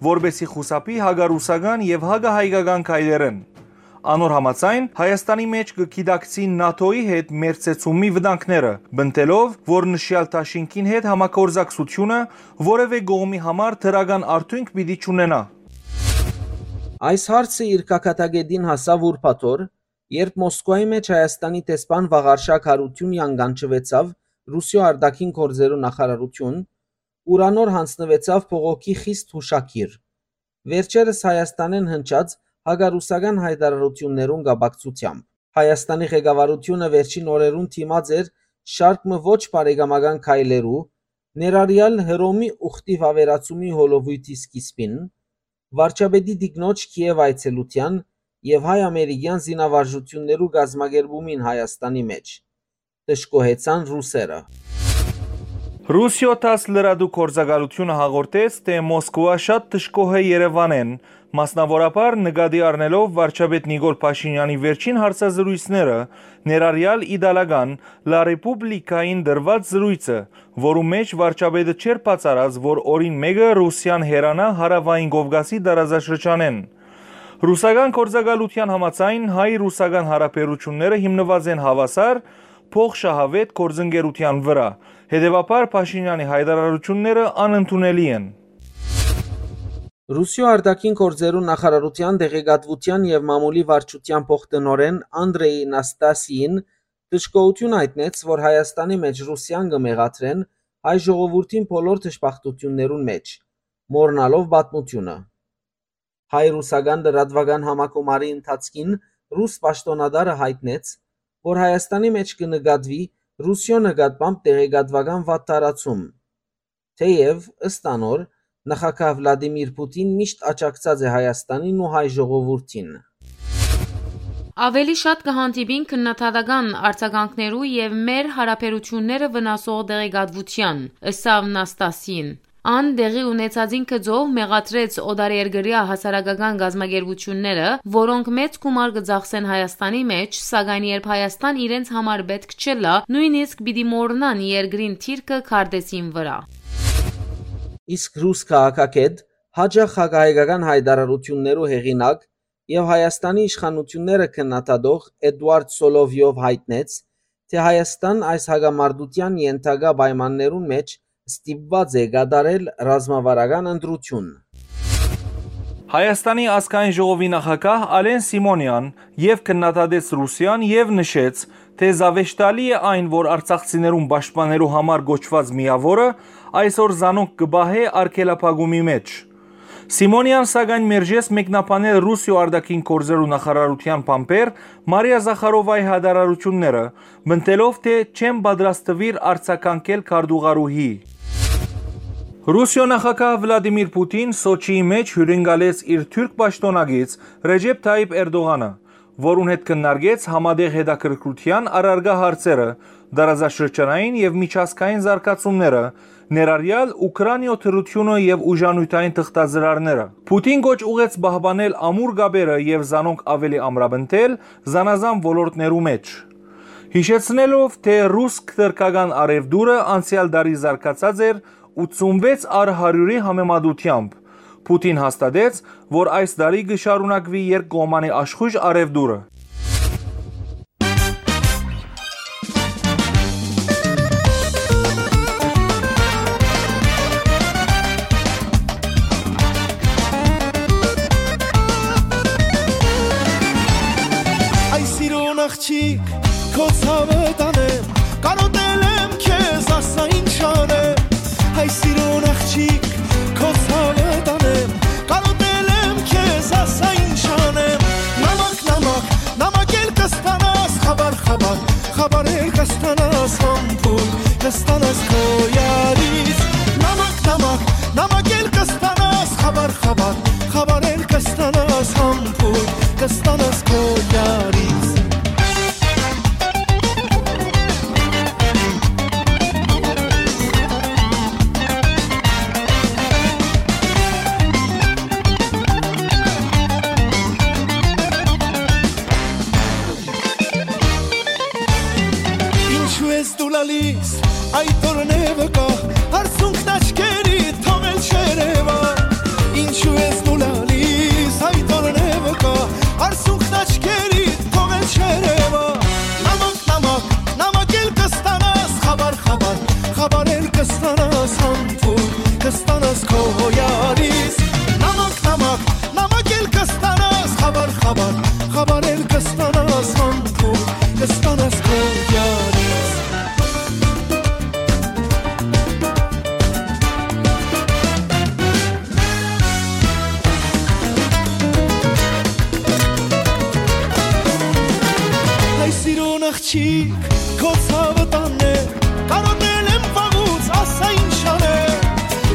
որպէսզի խուսափի հակառուսական եւ հակահայկական քայլերէն։ Անոր համաձայն, Հայաստանի մէջ կը գիտակցին նատօ-ի հետ մերձեցումի վտանգները, պնդելով, որ նշեալ դաշինքին հետ համագործակցությունը որեւէ կողմի համար դրական արդիւնք պիտի չունենայ։ Այս հարցը իր գագաթակետին հասաւ ուրբաթ օր, երբ Մոսկուայի մէջ Հայաստանի դեսպան Վաղարշակ Յարութիւնեան կանչուեցաւ Ռուսիոյ արտաքին գործերու նախարարութիւն, ուր անոր յանձնուեցաւ բողոքի խիստ յուշագիր։ Վերջերս Հայաստանէն հնչած հակառուսական յայտարարութիւններուն կապակցութեամբ։ Հայաստանի ղեկավարութիւնը վերջին օրերուն դիմած էր շարք մը ոչ բարեկամական քայլերու, ներառեալ Հռոմի ուխտի վաւերացումի հոլովոյթի սկիզբին, վարչապետի տիկնոջ Քիեւ այցելութեան եւ հայ-ամերիկեան զինավարժութիւններու կազմակերպումին Հայաստանի մէջ, դժգոհեցան ռուսերը։ Ռուսիոյ թաս լրատու գործակալութիւնը հաղորդեց, թէ Մոսկուա շատ դժգոհ է Երեւանէն, մասնաւորաբար նկատի առնելով վարչապետ Նիկոլ Փաշինեանի վերջին հարցազրոյցները, ներառեալ իտալական La Repubblica-ին տրուած զրոյցը, որու մէջ վարչապետը չէր բացառած, որ օրին մէկը Ռուսիան հեռանայ Հարաւային Կովկասի տարածաշրջանէն։ Ռուսական գործակալութեան համաձայն, հայ-ռուսական յարաբերութիւնները հիմնուած են հաւասար, փոխշահաւէտ գործընկերութեան վրայ, հետեւաբար Փաշինեանի յայտարարութիւնները անընդունելի են։ Ռուսիոյ արտաքին գործերու նախարարութեան տեղեկատվութեան եւ մամուլի վարչութեան փոխտնօրէն Անդրեյ Նաստասիին դժգոհութիւն յայտնեց, որ Հայաստանի մէջ Ռուսիան կը մեղադրեն հայ ժողովուրդին բոլոր դժբախտութիւններուն մէջ, մոռնալով պատմութիւնը։ Հայ-ռուսական լրատուական համագումարի ընթացքին ռուս պաշտօնատարը յայտնեց, որ Հայաստանի մէջ կը նկատուի Ռուսիոյ նկատմամբ տեղեկատուական վատթարացում, թէեւ, ըստ անոր, նախագահ Վլադիմիր Պուտին միշտ աջակցած է Հայաստանին ու հայ ժողովուրդին։ Աւելի շատ կը հանդիպին քննադատական արձագանքներու եւ մեր յարաբերութիւնները վնասող տեղեկատվութեան, ըսաւ Նաստասին։ Ան տեղի ունեցածին գծով մեղադրեց օտարերկրեայ հասարակական կազմակերպութիւնները, որոնք մեծ գումար կը ծախսեն Հայաստանի մէջ, սակայն երբ Հայաստան իրենց համար պէտք չըլլայ, նոյնիսկ պիտի մոռնան երկրին դիրքը քարտէսին վրայ։ Իսկ ռուս քաղաքագէտ, յաճախ հակահայկական յայտարարութիւններու հեղինակ եւ Հայաստանի իշխանութիւնները քննադատող Էդուարդ Սոլովիով յայտնեց, թէ Հայաստան այս հակամարտութեան ենթակայ պայմաններուն մէջ ստիպուած է կատարել ռազմավարական ընտրութիւն։ Հայաստանի ազգային ժողովի նախագահ Ալեն Սիմոնեան եւ քննադատեց Ռուսիան եւ նշեց, թէ զաւեշտալի է այն, որ արցախցիներուն պաշտպանելու համար կոչուած միաւորը այսօր զանոնք կը պահէ արգելափակումի մէջ։ Սիմոնեան, սակայն, մերժեց մեկնաբանել Ռուսիոյ արտաքին գործերու նախարարութեան բանբեր Մարիա Զախարովայի յայտարարութիւնները, պնդելով, թէ չեն պատրաստուիր արձագանքել քարտուղարուհի։ Ռուսիոյ նախագահ Վլադիմիր Պուտին Սոչիի մէջ հիւրընկալեց իր թուրք պաշտօնակից Ռեջեփ Թայիփ Էրտողանը, որուն հետ քննարկեց համատեղ հետաքրքրութեան առարկայ հարցերը, տարածաշրջանային եւ միջազգային զարգացումները, ներառեալ Ուքրաինիոյ դրութիւնը եւ ուժանիւթային թղթածրարները։ Պուտին կոչ ուղղեց պահպանել ամուր կապերը եւ զանոնք աւելի ամրապնդել զանազան ոլորտներու մէջ, յիշեցնելով, թէ ռուս-թրքական առեւտուրը անցեալ տարի զարգացած էր ութսունվեց առ հարիւրի համեմատութեամբ։ Պուտին հաստատեց, որ այս տարի կը շարունակուի երկկողմանի աշխոյժ առեւտուրը։ Հայ սիրուն աղջիկ, քո ցաւը տանեմ, կարոտել եմ քեզ, ասա ինչ անեմ։ Հայ սիրուն աղջիկ, քո ցաւը տանեմ, կարոտել եմ քեզ, ասա ինչ անեմ։ Նամակ, նամակ, նամակ էլ կստանաս, խաբար, խաբար, խաբար էլ կստանաս, համբույր կստանաս քո յարից։ Նամակ, նամակ, նամակ էլ կստանաս, խաբար, խաբար, խաբար էլ կստանաս, համբույր կստանաս քո յարից։ Ինչու ես դու լալիս, այդ օրն է վկա, արցունքն աչքերիդ թողել չերևա։ Ինչու ես դու լալիս, այդ օրն է վկա, արցունքն աչքերիդ թողել չերևա։ Նամակ, նամակ, նամակ էլ կստանաս, խաբար, խաբար, խաբար էլ կստանաս, համբույր կստանաս քո յարից։ Նամակ, նամակ, նամակ էլ կստանաս, խաբար, խաբար, խաբար էլ կստանաս, համբույր կստանաս քո յարից։ Հայ սիրուն աղջիկ, քո ցաւը տանեմ, կարոտել եմ վաղուց, ասա ինչ անեմ։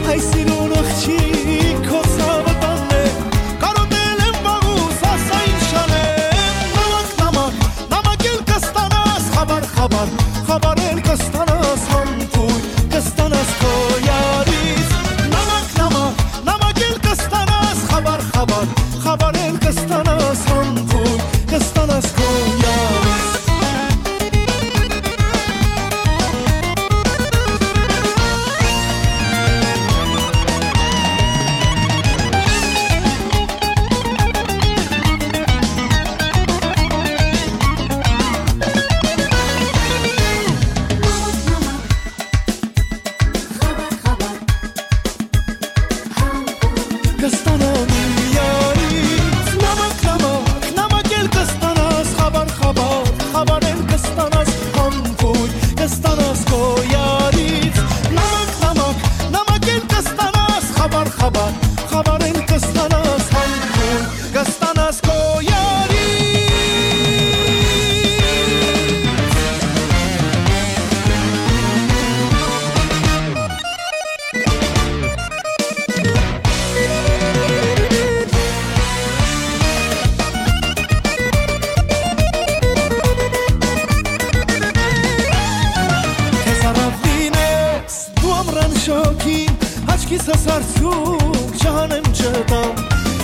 Հայ սիրուն աղջիկ, քո ցաւը տանեմ, կարոտել եմ վաղուց, ասա ինչ անեմ։ Նամակ, նամակ, նամակ էլ կստանաս, խաբար, խաբար, խաբար էլ կստանաս, համբույր կստանաս քո յարից։ Նամակ, նամակ, նամակ էլ կստանաս, խաբար, խաբար, խաբար էլ կստանաս, համբույր կստանաս քո յարից։ Կստանամ իմ յարից նամակ, նամակ, նամակ էլ կստանաս, խաբար, խաբար, խաբար էլ կստանաս, համբույր կստանաս քո յարից։ Նամակ, նամակ, նամակ էլ կստանաս, խաբար, խաբար, խաբար էլ կստանաս, համբույր կստանաս քո յարից։ Քեզ առաւլին ես դու ամրան շոգին, աչքիս ասարցում չհանեմ չտամ։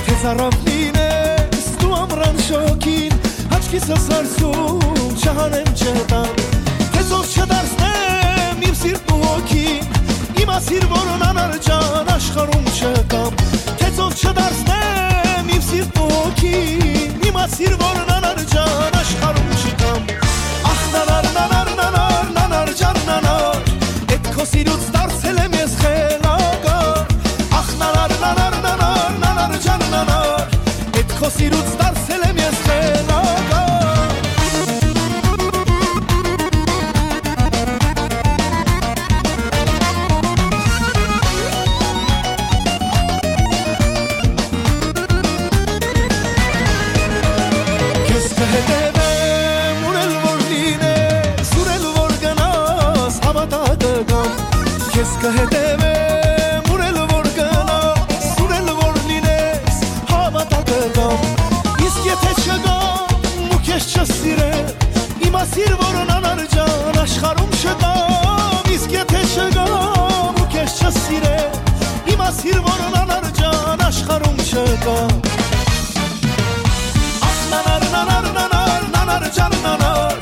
Քեզ առաւլին ես դու ամրան շոգին, աչքիս ասարցում չհանեմ չտամ։ Քեզով չդարձնեմ իմ սիրտն ու հոգին, իմացիր, որ անանար ջան աշխարհում չկամ։ Քեզով չդարձնեմ իմ սիրտն ու հոգին, իմացիր, որ անանար ջան աշխարհում չկամ։ Ախ, նանար, նանար, նանար, նանար ջան, նանար, էդ քո սիրուց դարձել եմ ես խելագար։ Ախ, նանար, նանար, նանար, նանար ջան, նանար, էդ քո սիրուց դարձել եմ ես խելագար։ Քեզ կհետևեմ, ուր էլ որ լինես, ուր էլ որ գնաս, հավատա կգամ։ Քեզ կհետևեմ, ուր Որ նանար ջան աշխարհում չկա։ Ախ, նանար, նանար, նանար, նանար ջան, նանար,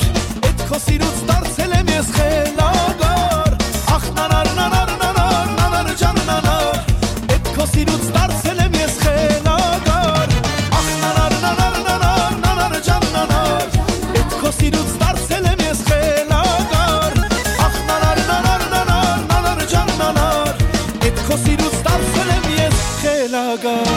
էդ քո սիրուց դարձել եմ ես խելագար։ Ախ, նանար, նանար, նանար, նանար ջան, նանար, էդ քո սիրուց դարձել եմ ես խելագար։ Ախ, նանար, նանար, նանար, նանար ջան, նանար, էդ քո սիրուց դարձել եմ ես խելագար։ Ախ, նանար, նանար, նանար, նանար ջան, նանար, էդ քո սիրուց դարձել եմ ես խելագար։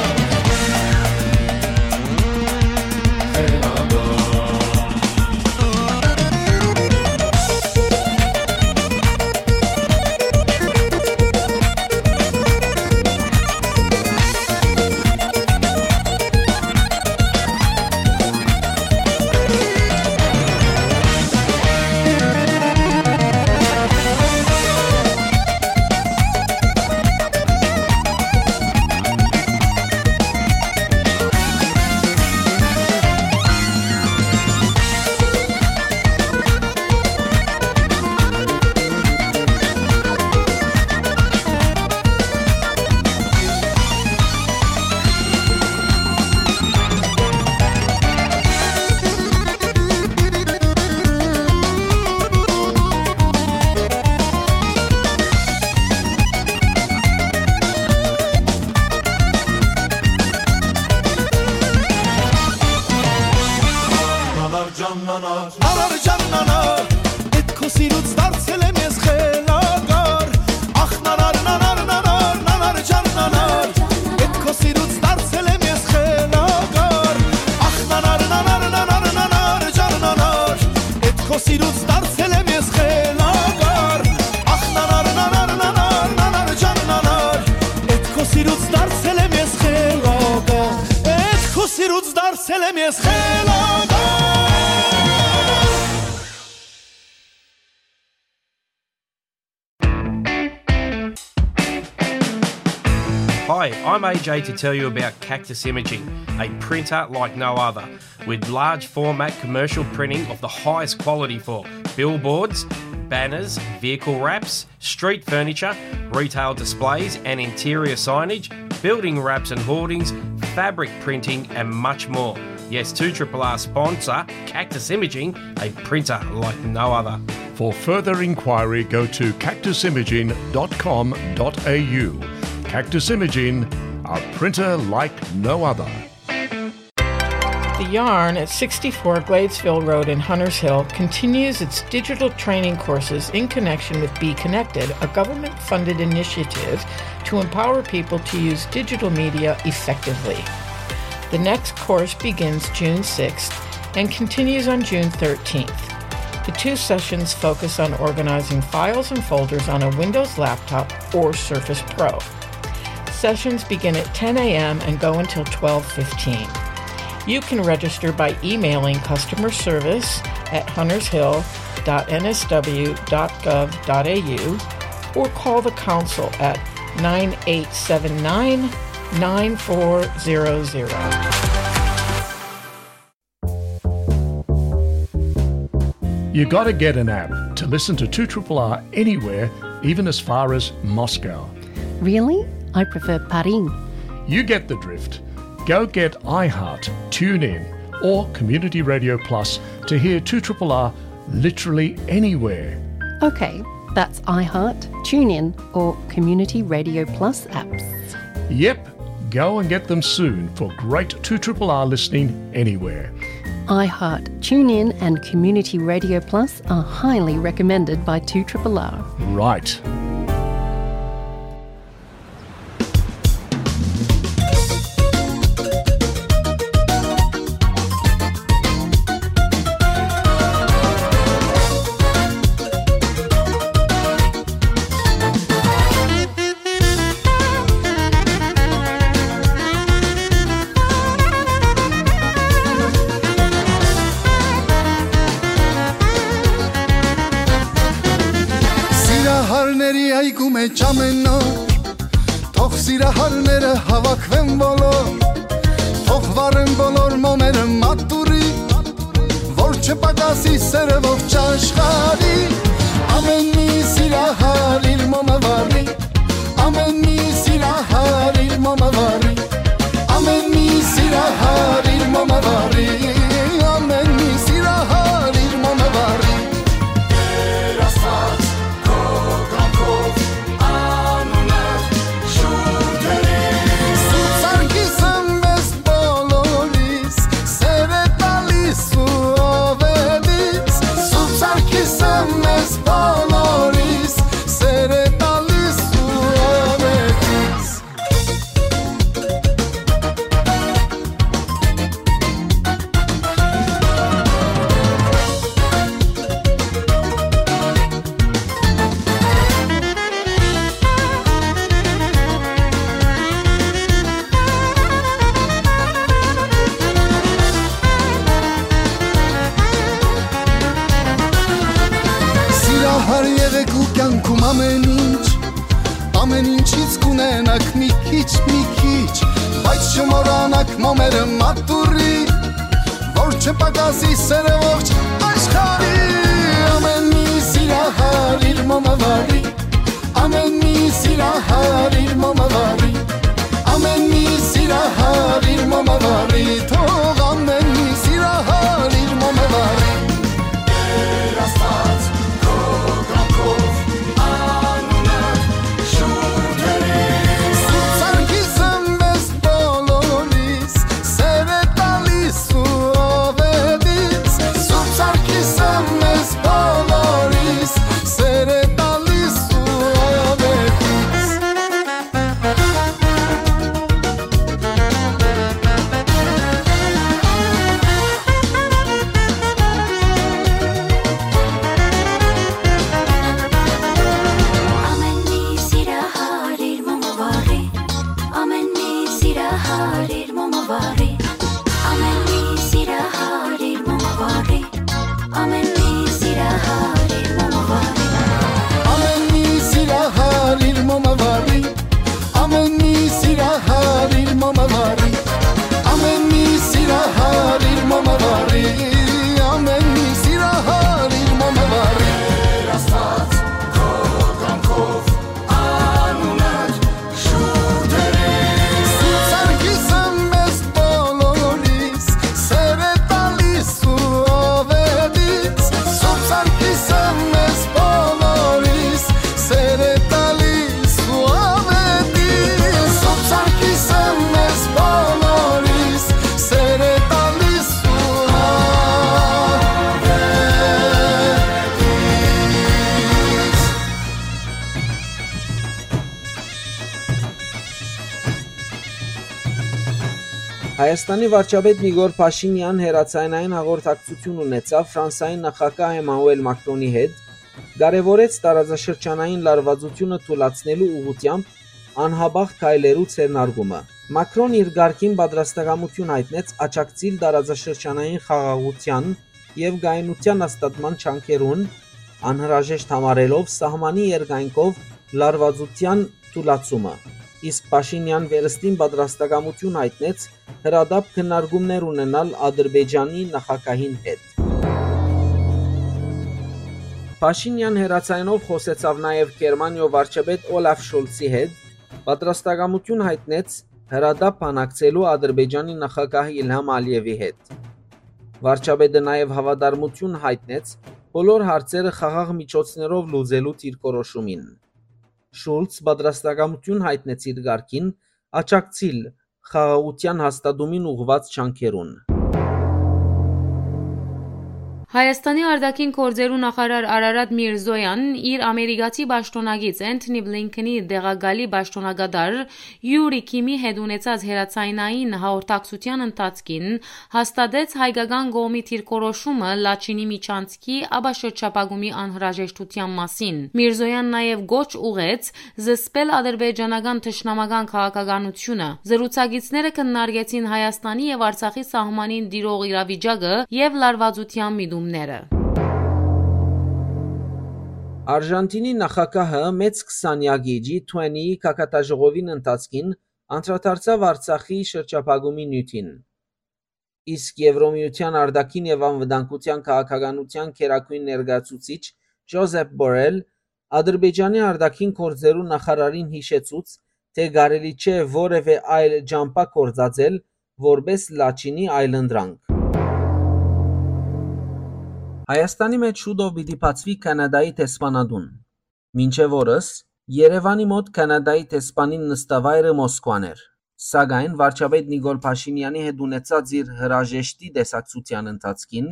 Նանար ջան, նանար, էդ քո սիրուց դարձել եմ ես խելագար։ Ախ, նանար, նանար, նանար, նանար ջան, նանար, էդ քո սիրուց դարձել եմ ես խելագար։ Ախ, նանար, նանար, նանար, նանար ջան, նանար, էդ քո սիրուց դարձել եմ ես խելագար։ Ախ, նանար, նանար, նանար, նանար ջան, նանար, էդ քո սիրուց դարձել եմ ես խելագար։ Էդ քո սիրուց դարձել եմ ես խելագար։ Hi, I'm A J to tell you about Cactus Imaging, a printer like no other, with large format commercial printing of the highest quality for billboards, banners, vehicle wraps, street furniture, retail displays and interior signage, building wraps and hoardings, fabric printing, and much more. Yes, two triple R sponsor Cactus Imaging, a printer like no other. For further inquiry, go to cactus imaging dot com dot a u. Cactus Imaging, a printer like no other. The Yarn at sixty-four Gladesville Road in Hunters Hill continues its digital training courses in connection with Be Connected, a government funded initiative to empower people to use digital media effectively. The next course begins June sixth and continues on June thirteenth. The two sessions focus on organizing files and folders on a Windows laptop or Surface Pro. Sessions begin at ten a m and go until twelve fifteen. You can register by emailing customer service at hunters hill dot n s w dot gov dot a u or call the council at nine eight seven nine, nine four zero zero. You gotta get an app to listen to two triple R anywhere, even as far as Moscow. Really? I prefer Paris. You get the drift. Go get iHeart, TuneIn, or Community Radio Plus to hear two triple R literally anywhere. Okay, that's iHeart, TuneIn, or Community Radio Plus apps. Yep, go and get them soon for great two triple R listening anywhere. iHeart, TuneIn, and Community Radio Plus are highly recommended by two triple R. Right. Սիրահարների այգու մեջ ամեն օր, թող սիրահարները հավաքվեն բոլոր, թող վառեն բոլոր մոմերը մատուրի, որ չպակասի սերը ողջ աշխարհի։ Ամեն մի սիրահար իր մոմը վառի, ամեն մի սիրահար Ամեն ինչ, ամեն ինչից կունենաք մի քիչ, մի քիչ, բայց չմոռանաք մոմերը մատուռի, որ չպակասի սերը ողջ աշխարհի։ Ամեն մի սիրահար իր մոմը վարի, ամեն մի սիրահար իր մոմը վարի, ամեն մի սիրահար իր մոմը վարի, թող ամեն մի սիրահար իր մոմը վարի։ Տեր Աստված, քո կամքով անունդ շուրջ երես։ Սուրբ Սարգիսը մեզ բոլորիս սեր է տալիս ու ավետիս, Սուրբ Սարգիսը մեզ բոլորիս սեր է տալիս ու ավետիս։ Ամեն մի սիրահար իր մոմը վարի, ամեն մի սիրահար իր մոմը վարի, ամեն մի սիրահար իր մոմը վարի, ամեն մի սիրահար իր մոմը վարի, ամեն մի սիրահար իր մոմը վարի, ամեն մի սիրահար իր մոմը վարի, ամեն մի սիրահար իր մոմը վարի, ամեն մի սիրահար իր մոմը վարի։ Տեր Աստված, քո կամքով անունդ շուրջ երես։ Սուրբ Սարգիսը մեզ բոլորիս սեր է տալիս ու ավետիս, Սուրբ Սարգիսը մեզ բոլորիս սեր է տալիս ու ավետիս, Սուրբ Սարգիսը մեզ բոլորիս սեր է տալիս ու ավետիս։ Հայաստանի վարչապետ Նիկոլ Փաշինեան հեռաձայնային հաղորդակցութիւն ունեցաւ Ֆրանսայի նախագահ Էմանուել Մակրոնի հետ, կարեւորեց տարածաշրջանային լարուածութիւնը թուլացնելու ուղղութեամբ անհապաղ քայլերու ձեռնարկումը։ Մակրոն իր կարգին պատրաստակամութիւն յայտնեց աջակցիլ տարածաշրջանային խաղաղութեան եւ կայունութեան հաստատման ջանքերուն, անհրաժեշտ համարելով սահմանի երկայնքով լարուածութեան թուլացումը, իսկ Փաշինեան վերստին պատրաստակամութիւն յայտնեց հրատապ քննարկումներ ունենալ Ադրբեջանի նախագահին հետ։ Փաշինեան հեռաձայնով խօսեցաւ նաեւ Գերմանիոյ վարչապետ Օլաֆ Շոլցի հետ, պատրաստակամութիւն յայտնեց հրատապ բանակցելու Ադրբեջանի նախագահ Իլհամ Ալիևի հետ։ Վարչապետը նաեւ հաւատարմութիւն յայտնեց բոլոր հարցերը խաղաղ միջոցներով լուծելու դիրքորոշումին։ Շուլց պատրաստակամութիւն յայտնեց իր կարգին աջակցիլ խաղաղութեան հաստատումին ուղղուած ջանքերուն։ Հայաստանի արտաքին գործերու նախարար Արարատ Միրզոյան իր ամերիկացի պաշտօնակից Էնթոնի Բլինքենի տեղակալի պաշտօնակատար Յուրի Քիմի հետ ունեցած հեռաձայնային հաղորդակցութեան ընթացքին հաստատեց հայկական կողմի դիրքորոշումը Լաչինի միջանցքի, ապա շրջափակումի անհրաժեշտութեան մասին։ Միրզոյան նաեւ կոչ ուղղեց զսպել ադրբեջանական թշնամական քաղաքականությունը։ Զրուցակիցները քննարկեցին Հայաստանի եւ Արցախի սահմանին տիրող իրավիճակը եւ լարուածութեան միտումները։ Արժանտինի նախագահը մեծ քսանեակի G twenty-ի գագաթաժողովին ընթացքին անդրադարձաւ Արցախի շրջափակումի նիւթին։ Իսկ Եվրոմիության արտաքին եւ անվտանգության քաղաքականության գերագույն ներկայացուցիչ Ջոզեփ Բորել Ադրբեջանի արտաքին գործերու նախարարին յիշեցուց, թէ կարելի չէ որեւէ այլ ճամբայ գործածել որպէս Լաչինի այլընտրանք։ Հայաստանի մէջ շուտով պիտի բացուի Քանադայի դեսպանատուն։ Մինչեւ օրս Երեւանի մօտ Քանադայի դեսպանին նստավայրը Մոսկուան էր, սակայն վարչապետ Նիկոլ Փաշինեանի հետ ունեցած իր հրաժեշտի տեսակցութեան ընթացքին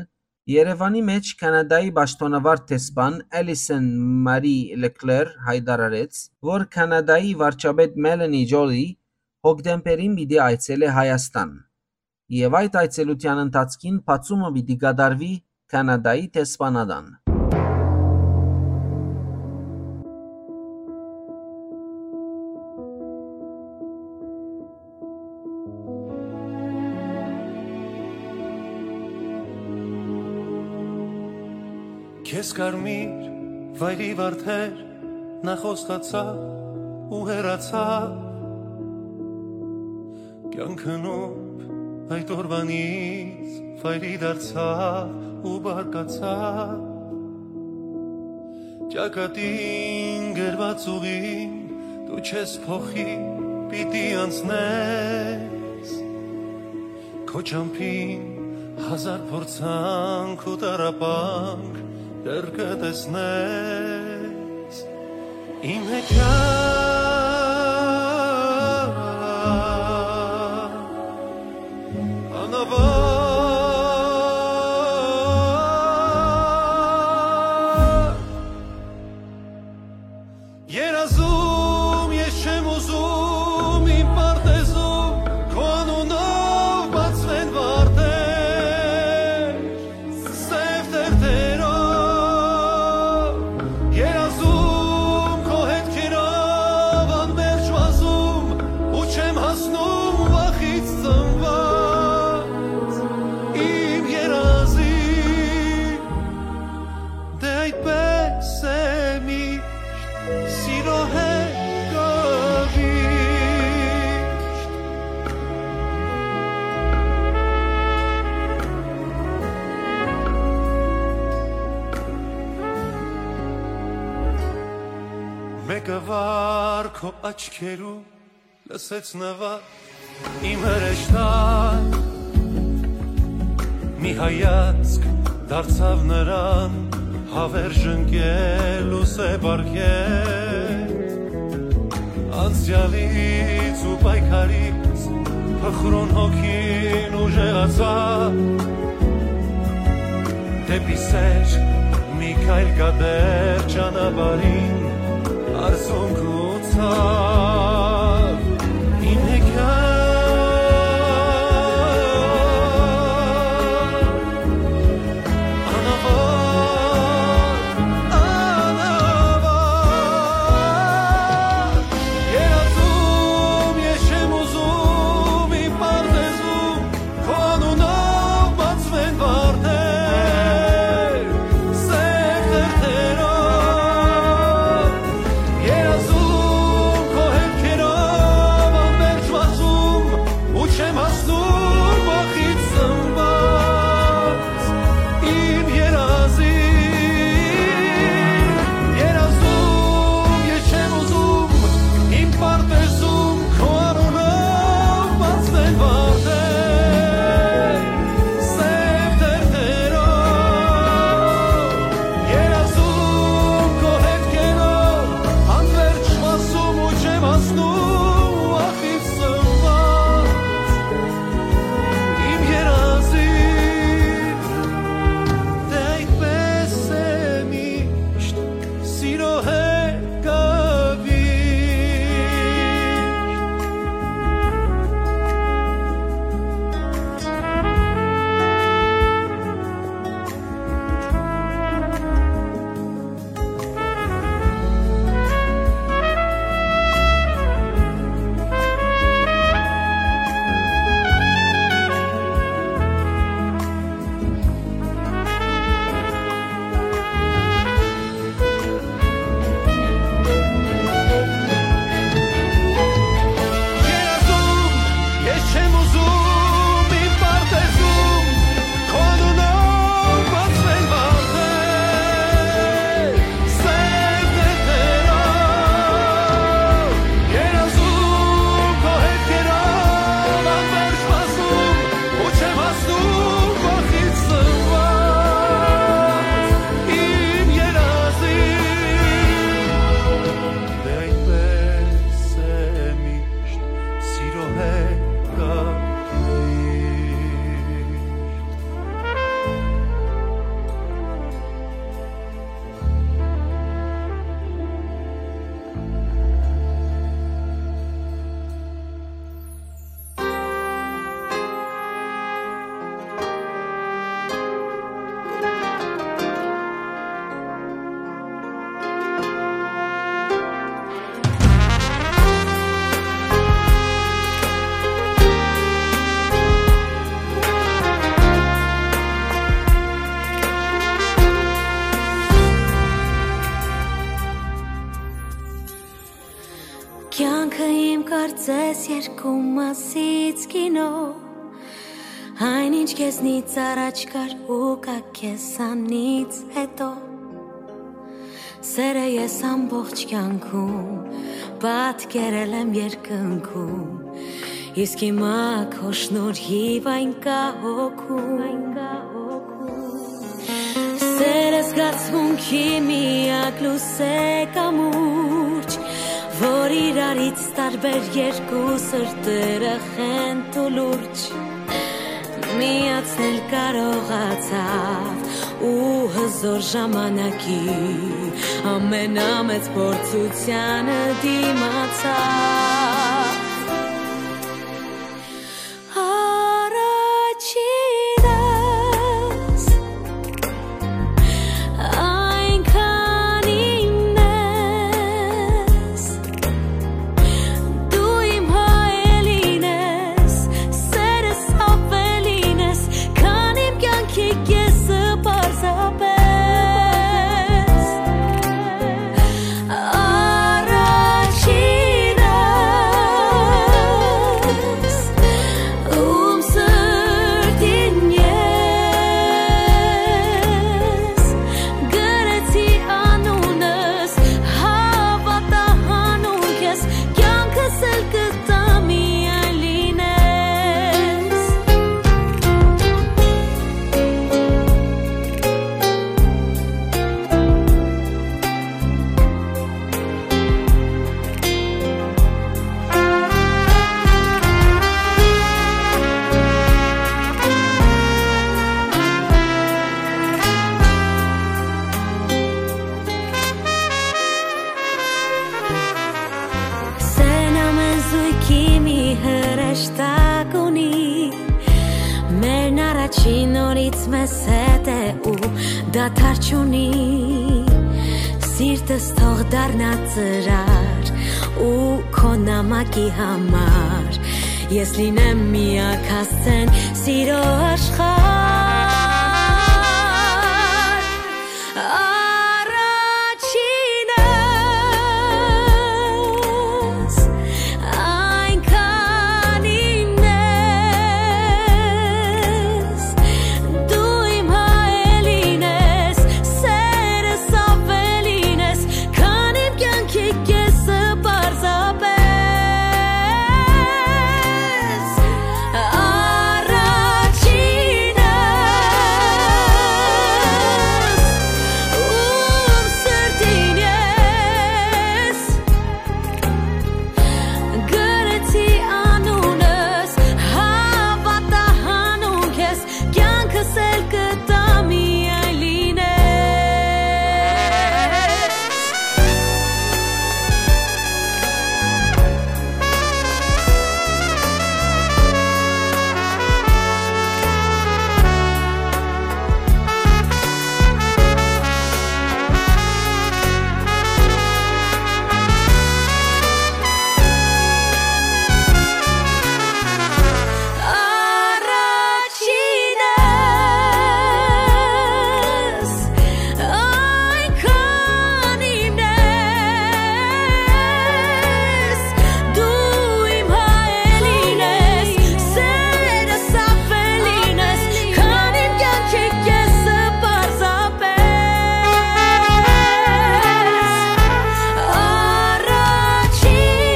Երեւանի մէջ Քանադայի պաշտօնավար դեսպան Էլիսոն Մարի Լեկլեր յայտարարեց, որ Քանադայի վարչապետ Մելանի Ջոլի հոկտեմբերին պիտի այցելէ Հայաստան, եւ այդ այցելութեան ընթացքին բացումը պիտի կատարուի Քանադայի դեսպանատան։ Քեզ կարմիր վայրի վարդեր Նախ խոստացաւ ու հեռացաւ, կեանքը նուրբ այդ օրուանից վայրի դարձաւ ու բարկացաւ։ Ճակատին գրված ուղին դու չես փոխի, պիտի անցնես։ Քո ճամբին հազար փորձանք ու տառապանք դեռ կը տեսնես։ Իմ հեքիաթ անավարտ։ Երազում ես չեմ ուզում իմ պարտեզում քո անունով բացվեն վարդեր, սեւ թերթերով։ Երազում քո հետքերով անմերժ վազում ու չեմ հասնում վախից ծնված իմ երազի։ Դե այդպես է միշտ, սիրո հետ կողիշտ։ Մեկը վար քո աչքերու լսեց նվագ իմ հրեշտակ, մի հայացք դարձաւ նրան, հավերժ ընկել ու սեպ արկել։ Անցեալից ու պայքարից փխրուն հոգին ուժեղացաւ, դէպի սեր մի քայլ կատեր ճանապարհին արցունք գուցա։ Իմ հեքիաթ անավարտ, անավարտ, երազում ես չեմ ուզում իմ պարտեզում քո անունով բացվեն վարդեր, սեւ թերթերով, երազում քո հետքերով Ես երկու մասից կինո, այն ինչ քեզնից առաջ կար ու կա քեզանից հետո։ Սերը ես ամբողջ կյանքում պատկերել եմ երկնքում, իսկ հիմա քո շնորհիվ այն կա հոգում։ Սերը զգացմունքի միակ լուսե կամուրջ, որ իրարից տարբեր երկու սրտերը խենթ ու լուրջ միացնել կարողացաւ ու հզոր ժամանակի ամենամեծ փորձությանը դիմացաւ։ Առաջինս այնքան իմն ես, դու իմ հայելին ես, սերս ավելին ես, քան իմ կյանքի կեսը պարզապես։ Առաջինս, ում սրտին ես գրեցի անունս, հավատա հանուն քեզ, կյանքս էլ կտամ միայն լինես։ Սեն ամեն զույգի մի հրեշտակ ունի, մերն առաջին օրից մեզ հետ է ու դադար չունի։ Սիրտս թող դառնա ծրար ու քո նամակի համար ես լինեմ միակ հասցեն սիրո աշխարհ։ Առաջինս, այնքան իմն ես, դու իմ հայելին ես, սերս ավելին ես, քան իմ կյանքի կեսը պարզապես։ Առաջինս, ում սրտին ես գրեցի անունս, հավատա հանուն քեզ, կյանքս էլ կտամ միայն լինես։ Առաջինս, այնքան իմն ես, դու իմ հայելին ես, սերս ավելին ես, քան իմ կյանքի կեսը պարզապես։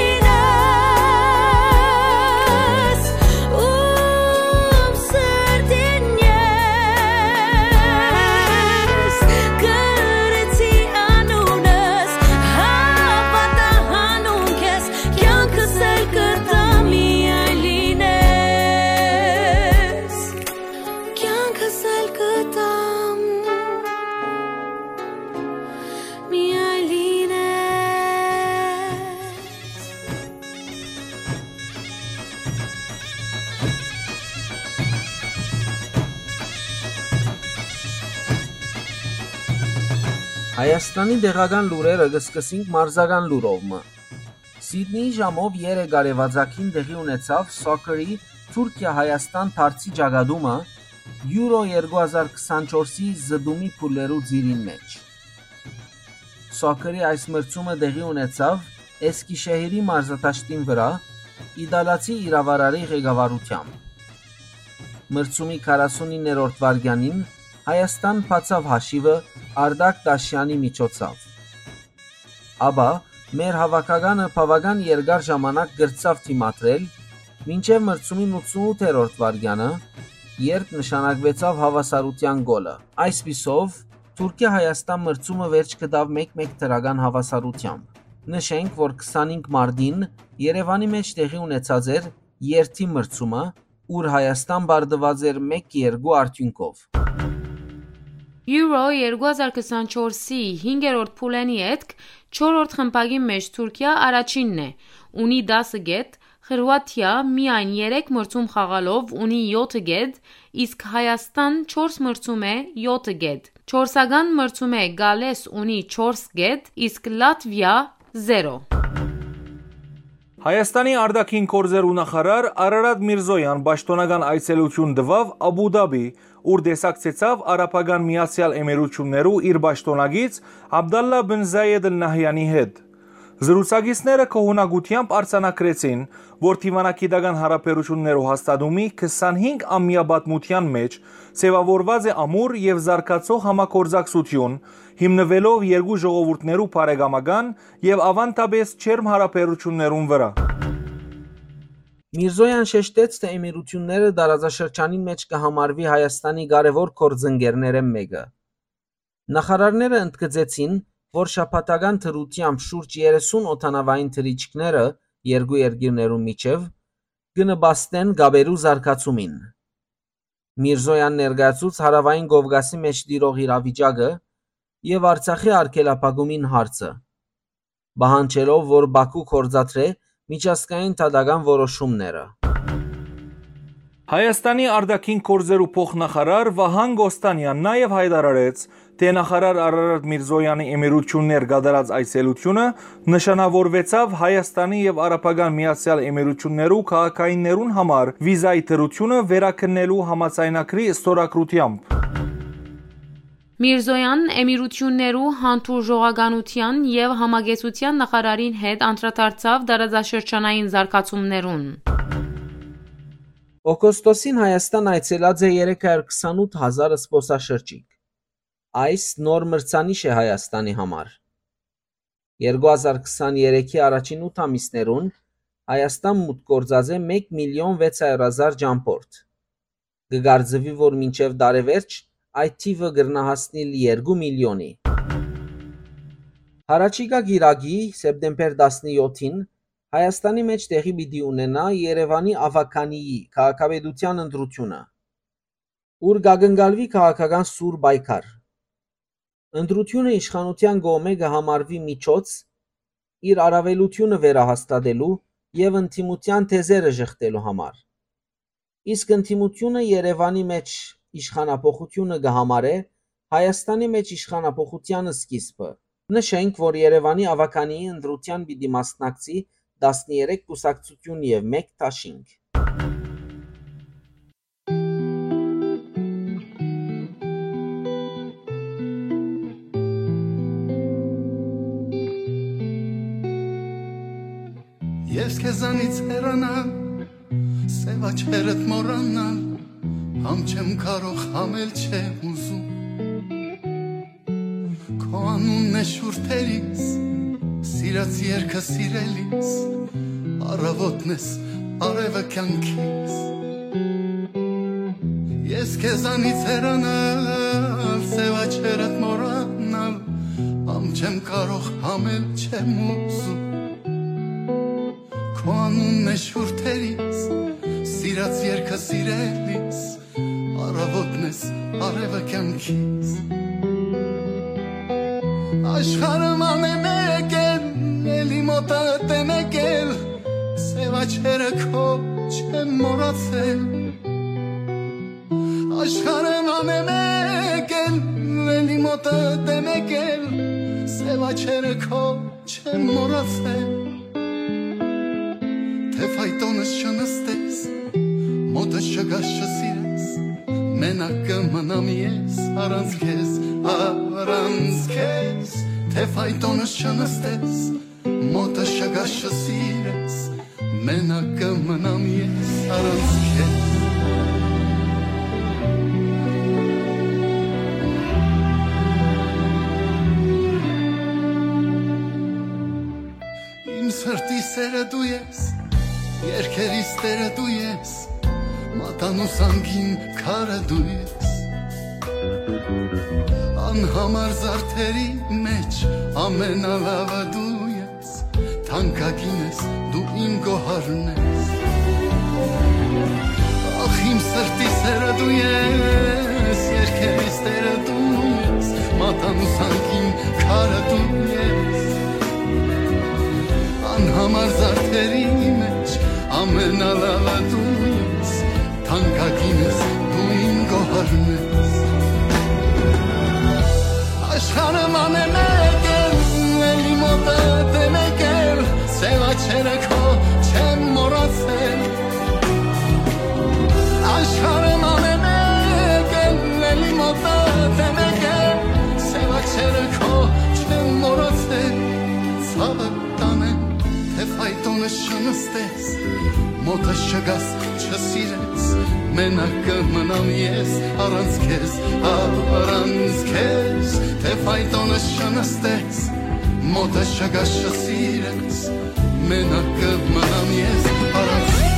Առաջինս, ում սրտին ես գրեցի անունս, հավատա հանուն քեզ, կյանքս էլ կտամ միայն լինես, կյանքս էլ կտամ միայն լինես։ Հայաստանի տեղական լուրերը կը սկսենք մարզական լուրով մը։ Սիդնիի ժամով երեք արեւածագին տեղի ունեցաւ սոքերի Թուրքիա-Հայաստան դարձի ճակատումը Euro երկու հազար քսանչորսի զտումի փուլերու ծիրին մէջ։ Սոքերի այս մրցումը տեղի ունեցաւ Էսկիշեհիրի մարզադաշտին վրայ, իտալացի իրաւարարի ղեկավարութեամբ։ Մրցումի քառասունիններորդ վայրկեանին Հայաստան բացաւ հաշիւը Արտակ Դաշյանի միջոցաւ։ Ապա մեր հաւաքականը բաւական երկար ժամանակ կրցաւ դիմադրել, մինչեւ մրցումին ութսունութերորդ վայրկեանը, երբ նշանակուեցաւ հաւասարութեան գոլը։ Այսպիսով, Թուրքիա-Հայաստան մրցումը վերջ գտաւ մէկ մէկ դրական հաւասարութեամբ։ Նշենք, որ քսանհինգ մարտին Երեւանի մէջ տեղի ունեցած էր երթի մրցումը, ուր Հայաստան պարտուած էր մէկ երկու արդիւնքով։ Euro երկու հազար քսանչորսի հինգերորդ փուլենի ետք չորրորդ խմբակի մէջ Թուրքիա առաջինն է, ունի տասը կետ, Խրուաթիա միայն երեք մրցում խաղալով ունի յոթը կետ, իսկ Հայաստան չորս մրցում է յոթը կետ։ Չորսական մրցում է Գալես ունի չորս կետ, իսկ Լատվիա՝ զերո։ Հայաստանի արտաքին գործերու նախարար Արարատ Միրզոյան պաշտոնական այցելութիւն տուաւ Աբու Դաբի, ուր տեսակցեցաւ Արաբական Միացեալ Էմիրութիւններու իր պաշտօնակից Աբդալլա բն Զայեդ Ալ Նահյանի հետ։ Զրուցակիցները գոհունակութեամբ արձանագրեցին, որ դիվանագիտական յարաբերութիւններու հաստատումի քսանհինգ ամեայ պատմութեան մէջ ձեւաւորուած է ամուր եւ զարգացող համագործակցութիւն, հիմնուելով երկու ժողովուրդներու բարեկամական եւ աւանդապէս ջերմ յարաբերութիւններուն վրայ։ Միրզոյան շեշտեց, թէ Էմիրութիւնները տարածաշրջանին մէջ կը համարուի Հայաստանի կարեւոր գործընկերներէն մէկը։ Նախարարները ընդգծեցին, որ շաբաթական դրութեամբ շուրջ երեսուն օդանաւային թռիչքները երկու երկիրներուն միջեւ կը նպաստեն կապերու զարգացումին։ Միրզոյան ներկայացուց Հարաւային Կովկասի մէջ տիրող իրավիճակը եւ Արցախի արգելափակումին հարցը, պահանջելով, որ Բաքու գործադրէ միջազգային դատական որոշումները։ Հայաստանի արտաքին գործերու փոխնախարար Վահան Կոստանեան նաեւ յայտարարեց, թէ նախարար Արարատ Միրզոյանի Էմիրութիւններ կատարած այցելութիւնը նշանաւորուեցաւ Հայաստանի եւ Արաբական Միացեալ Էմիրութիւններու քաղաքայիններուն համար վիզայի դրութիւնը վերաքննելու համաձայնագրի ստորագրութեամբ։ Միրզոյան Էմիրութիւններու հանդուրժողականութեան եւ համակեցութեան նախարարին հետ անդրադարձաւ տարածաշրջանային զարգացումներուն։ Օգոստոսին Հայաստան այցելած է երեք հարյուր քսանութ հազար զբօսաշրջիկ։ Այս նոր մրցանիշ է Հայաստանի համար։ Երկու հազար քսաներեքի առաջին ութ ամիսներուն Հայաստան մուտք գործած է մէկ միլիոն վեց հարյուր հազար ճամբորդ։ Կը կարծուի, որ մինչեւ տարեվերջ այդ թիւը կրնայ հասնիլ երկու միլիոնի։ Յառաջիկայ կիրակի, սեպտեմբեր տասնեթին, Հայաստանի մէջ տեղի պիտի ունենայ Երեւանի աւագանիի քաղաքապետութեան ընտրութիւնը, ուր կ'ակնկալուի քաղաքական սուր պայքար։ Ընտրութիւնը իշխանութեան կողմէ կը համարուի միջոց՝ իր առաւելութիւնը վերահաստատելու եւ ընդդիմութեան թեզերը ժխտելու համար։ Իսկ ընդդիմութիւնը Երեւանի մէջ իշխանափոխութիւնը կը համարէ Հայաստանի մէջ իշխանափոխութեան սկիզբը։ Նշենք, որ Երեւանի աւագանիի ընտրութեան պիտի մասնակցի տասներեք կուսակցութիւն եւ մէկ դաշինք։ Ես քեզանից հեռանալ, սև աչքերդ մոռանալ, համ չեմ կարող, համ էլ չեմ ուզում։ Քո անունն է շուրթերիս, սիրած երկը սիրելիս, առավոտն ես, արևը կյանքիս։ Ես քեզանից հեռանալ, սև աչքերդ մոռանալ, համ չեմ կարող, համ էլ չեմ ուզում։ Քո անունն է շուրթերիս, սիրած երկը սիրելիս, առավոտն ես, արևը կյանքիս։ Աշխարհը ման է մեկ էլ, էլի մոտդ է մեկ էլ, սև աչքերը քո չեմ մոռացել։ Աշխարհը ման է մեկ էլ, էլի մոտդ է մեկ էլ, սև աչքերը քո չեմ մոռացել։ Թե ֆայտոնս չնստես, մոտս չգաս, չսիրես, մենակ կը մնամ ես առանց քեզ, առանց քեզ։ Թե ֆայտոնս չնստես, մոտս չգաս, չսիրես, Մենակ կը մնամ ես առանց քեզ։ Իմ սրտի սերը դու ես, երկերիս տերը դու ես, մատանու սանքին քարը դու ես։ Անհամար զարդերի մեջ ամենալավը դու ես, թանկագին ես դու իմ գոհարն ես։ Ախ, իմ սրտի սերը դու ես, երկերիս տերը դու ես, մատանու սանքին քարը դու ես։ Անհամար զարդերի մեջ ամենալավը դու ես, թանկագին ես դու իմ գոհարն ես։ Աշխարհը մանը մեկ է, էլի մոտը դե մեկ է, սեւ աչերը քո չեմ մոռացել։ Աշխարհը մանը մեկ է, էլի մոտը դե մեկ է, սեւ աչերը քո չեմ մոռացել։ Ցաւը տանեմ, թէ ֆայտոնը չնստես, մոտը չգաս, չսիրես, մենակ կը մնամ ես առանց քեզ, առանց քեզ, թէ ֆայտոնը չնստես, մոտը չգաս, չսիրես, մենակ կը մնամ ես առանց քեզ։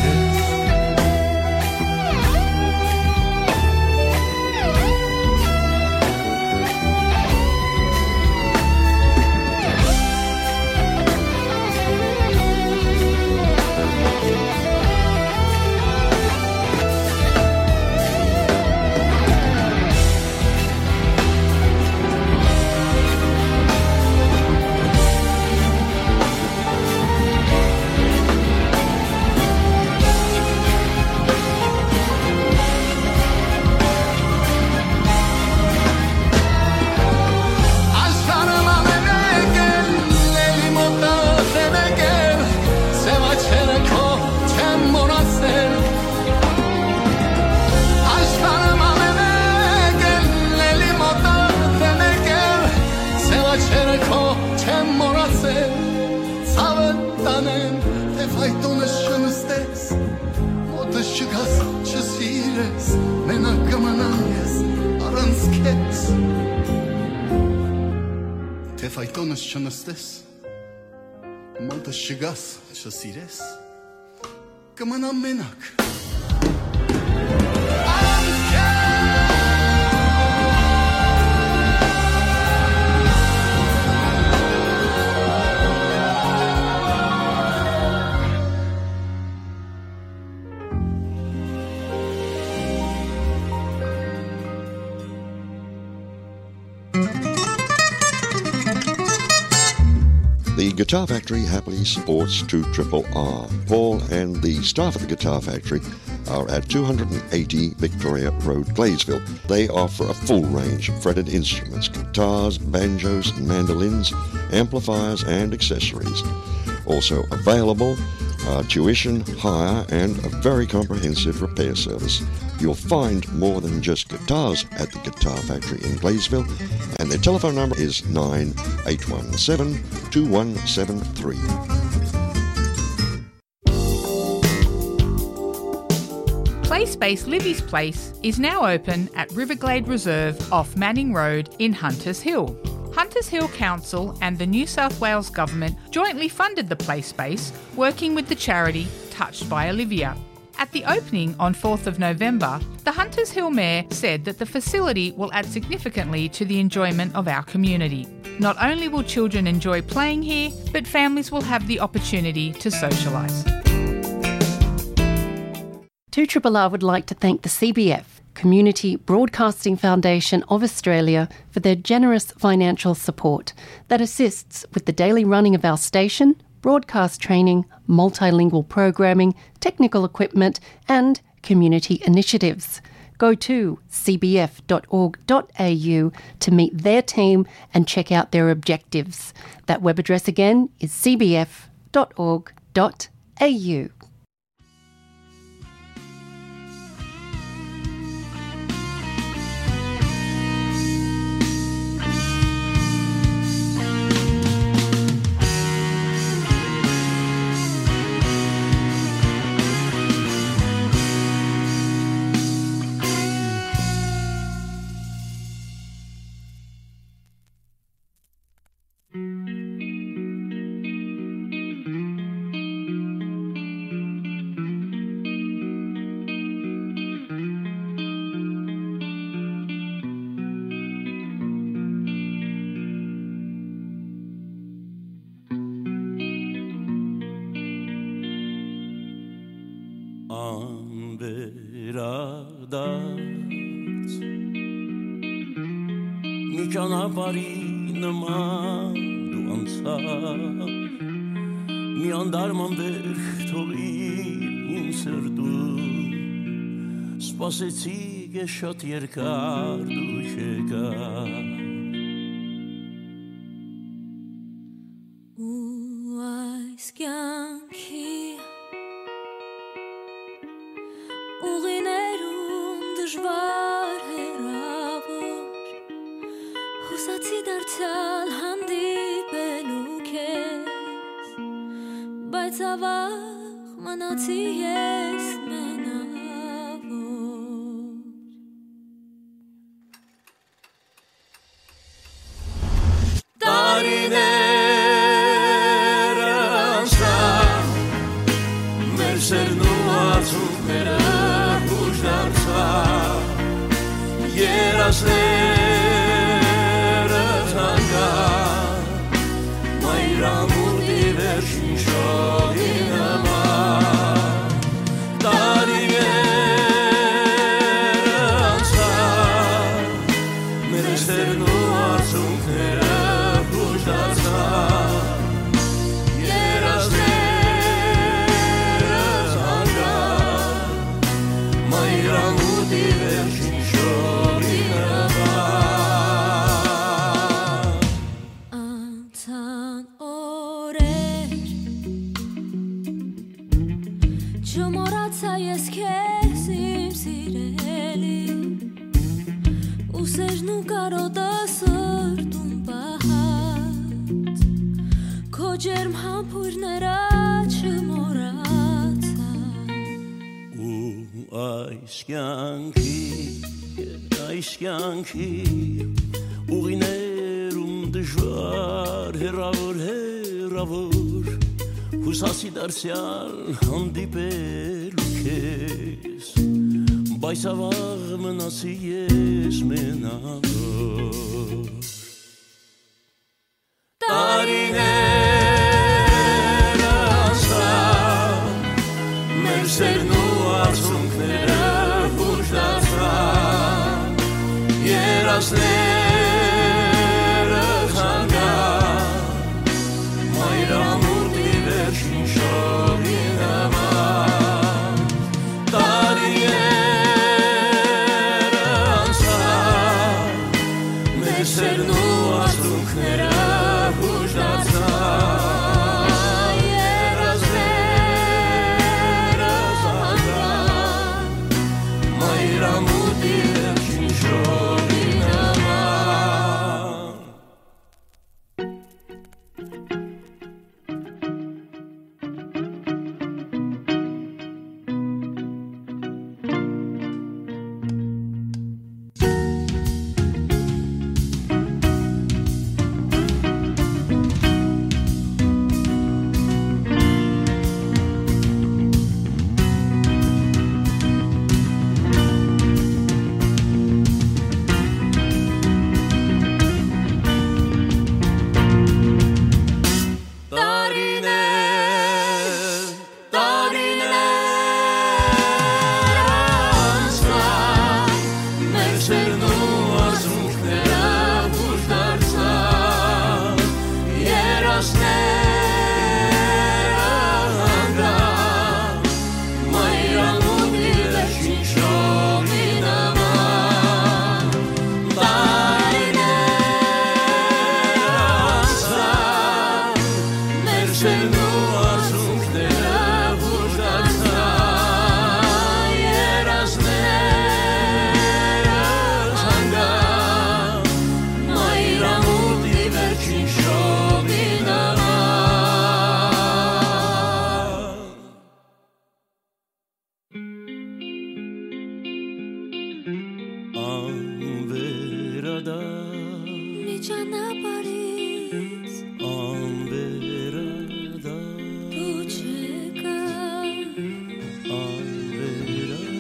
Աշխարհը մանը մեկ է, էլի մոտը դե մեկ է, սեւ աչերը քո չեմ մոռացել։ Աշխարհը մանը մեկ է, էլի մոտը դե մեկ է, սեւ աչերը քո չեմ մոռացել։ Ցաւը տանեմ, թէ ֆայտոնը չնստես, մոտը չգաս, չսիրես, մենակ կը մնամ ես առանց քեզ։ Թէ ֆայտոնս չնստես, մոտս չգաս, չսիրես, կը մնամ մենակ։ The Guitar Factory happily supports two triple R. Paul and the staff at the Guitar Factory are at two hundred and eighty Victoria Road, Gladesville. They offer a full range of fretted instruments, guitars, banjos, mandolins, amplifiers, and accessories. Also available are tuition, hire, and a very comprehensive repair service. You'll find more than just guitars at the Guitar Factory in Gladesville, and their telephone number is nine eight one seven two one seven three. Play space Livy's Place is now open at Riverglade Reserve off Manning Road in Hunters Hill. Hunters Hill Council and the New South Wales Government jointly funded the play space, working with the charity Touched by Olivia. At the opening on fourth of November, the Hunters Hill Mayor said that the facility will add significantly to the enjoyment of our community. Not only will children enjoy playing here, but families will have the opportunity to socialise. Two Triple R would like to thank the C B F, Community Broadcasting Foundation of Australia, for their generous financial support that assists with the daily running of our station, broadcast training, multilingual programming, technical equipment, and community initiatives. Go to C B F dot org dot A U to meet their team and check out their objectives. That web address again is C B F dot org dot A U. Հրադարձ, մի ճանապարհի նման դու անցար, մի անտարման վերք թողիր իմ սրտում, սպասեցի ես շատ երկար դու չեկար։ Ու այս կյանքի ուղիներուն դժուար հեռաւոր, յուսացի դարձեալ հանդիպելու քեզ, բայց ավաղ մնացի ես մենաւոր։ Տարիներ անցան, մեր սերն ու արցունքները յուշ դարձան, երազները թանկան, մայրամուտի վերջին շողի նման։ Տարիներ անցան, մեր սերն ու արցունքները յուշ դարձան, երազները թանկան, մայրամուտի վերջին շողի նման։ Անցան օրեր, չմոռացայ ես քեզ, իմ սիրելի, ու սերն ու կարոտը սրտում պահած, քո ջերմ համբոյրները չմոռացայ։ Ու այս կյանքի, այս կյանքի ուղիներում դժուար, հեռաւոր, հեռաւոր, յուսացի դարձեալ հանդիպելու քեզ, բայց ավաղ մնացի ես մենաւոր։ Տարիներ անցան, մեր սերն ու արցունքները յուշ դարձան, երազները թանկան, մայրամուտի վերջին շողի նման։ Տարիներ անցան, մեր սերն ու արցունքները յուշ դարձան, երազները թանկան, մայրամուտի վերջին շողի նման։ Տարիներ, տարիներ անցան, մեր սերն ու արցունքները յուշ դարձան, երազները թանկան, մայրամուտի վերջին շողի նման։ Տարիներ անցան, մեր սերն ու արցունքները յուշ դարձան, երազները թանկան, մայրամուտի վերջին շողի նման։ Անվերադառ։ Մի ճանապարհից։ Անվերադառ։ Դու չեկար։ Անվերադառ։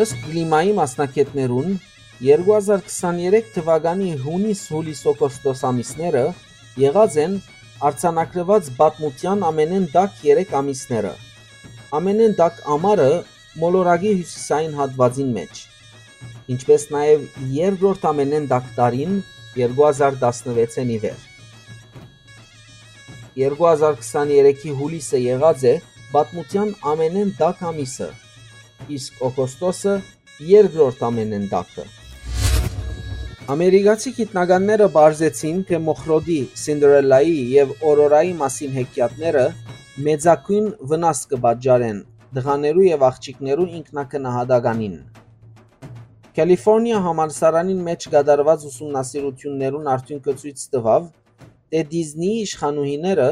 Ըստ կլիմայի մասնագետներուն, Երկու հազար քսաներեք թուականի յունիս, յուլիս, օգոստոս ամիսները եղած են արձանագրուած պատմութեան ամենէն տաք երեք ամիսները, ամենէն տաք ամառը մոլորակի հիւսիսային հատուածին մէջ, ինչպէս նաեւ երկրորդ ամենէն տաք տարին երկու հազար տասնվեցէն ի վեր։ Երկու հազար քսաներեքի յուլիսը եղած է պատմութեան ամենէն տաք ամիսը, իսկ օգոստոսը երկրորդ ամենէն տաքը։ Ամերիկացի գիտնականները պարզեցին, թէ մոխրոտի, Սինդրելլայի եւ Օրորայի մասին հեքիաթները մեծագոյն վնաս կը պատճառեն տղաներու եւ աղջիկներու ինքնակնահատականին։ Կալիֆորնիա համալսարանին մէջ կատարուած ուսումնասիրութիւններուն արդիւնքը ցոյց տուաւ, թէ Դիզնիի իշխանուհիները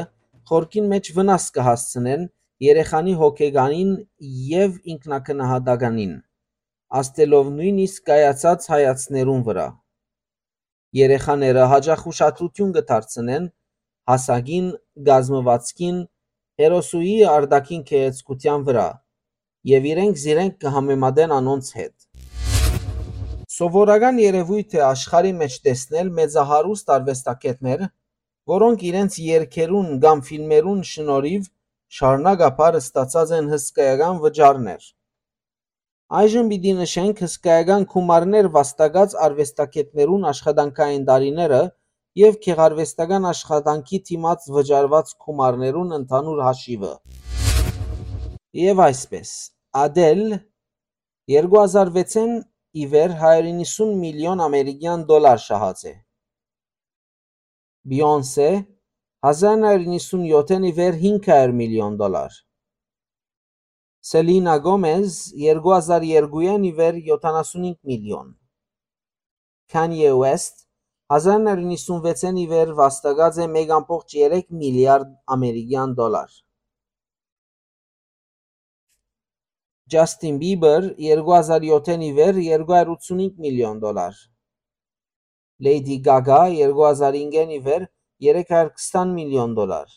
խորքին մէջ վնաս կը հասցնեն երեխանի հոգեկանին եւ ինքնակնահատականին, ազդելով նոյնիսկ կայացած հայացքներուն վրայ։ Երեխաները յաճախ ուշադրութիւն կը դարձնեն հասակին, կազմուածքին, հերոսուհի արտաքին գեղեցկութեան վրայ եւ իրենք զիրենք կը համեմատեն անոնց հետ։ Սովորական երեւոյթ է աշխարհի մէջ տեսնել մեծահարուստ արուեստագէտներ, որոնք իրենց երգերուն կամ ֆիլմերուն շնորհիւ շարունակաբար ստացած են հսկայական վճարներ։ Այժմ պիտի նշենք հսկայական գումարներ վաստակած արուեստագէտներուն աշխատանքային տարիները եւ գեղարուեստական աշխատանքի դիմաց վճարուած գումարներուն ընդհանուր հաշիվը։ Եւ այսպես, Ադել երկու հազար վեցէն ի վեր հարիւր իննսուն միլիոն ամերիկեան դոլար շահած է։ Բիոնսե, հազար նոյ յոթ իննսուն յոթ ի վեր հինգ հարիւր միլիոն դոլար։ Սելինա Գոմեզ, երկու հազար երկուէն ի վեր յոթանասունհինգ միլիոն։ Քանիե Ուեսթ, հազար նոյ յոթ իննսուն վեցէն ի վեր վաստակած է մէկ ամբողջ երեք միլիարդ ամերիկեան դոլար։ Ջասթին Բիբեր, երկու հազար յոթէն ի վեր երկու հարիւր ութսունհինգ միլիոն դոլար։ Լեյդի Գագա, երկու հազար հինգէն ի վեր երեք հարիւր քսան միլիոն դոլար։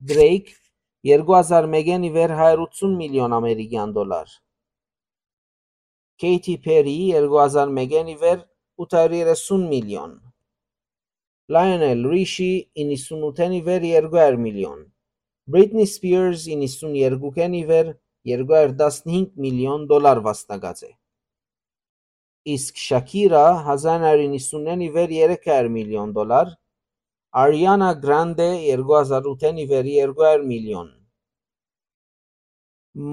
Դրեյք, երկու հազար մէկէն ի վեր հարիւր ութսուն միլիոն ամերիկեան դոլար։ Քեյթի Փերի, երկու հազար մէկէն ի վեր ութ հարիւր երեսուն միլիոն։ Լայոնել Ռիշի, իննսուն ութէն ի վեր երկու հարիւր միլիոն։ Բրիտնի Սպիըրզ, իննսուն երկուքէն ի վեր երկու հարիւր տասնհինգ միլիոն դոլար վաստակած է։ Իսկ Շաքիրա, հազար նոյ յոթ իննսունէն ի վեր երեք հարիւր միլիոն դոլար, Արիանա Գրանդե, երկու հազար ութէն ի վեր երկու հարիւր միլիոն,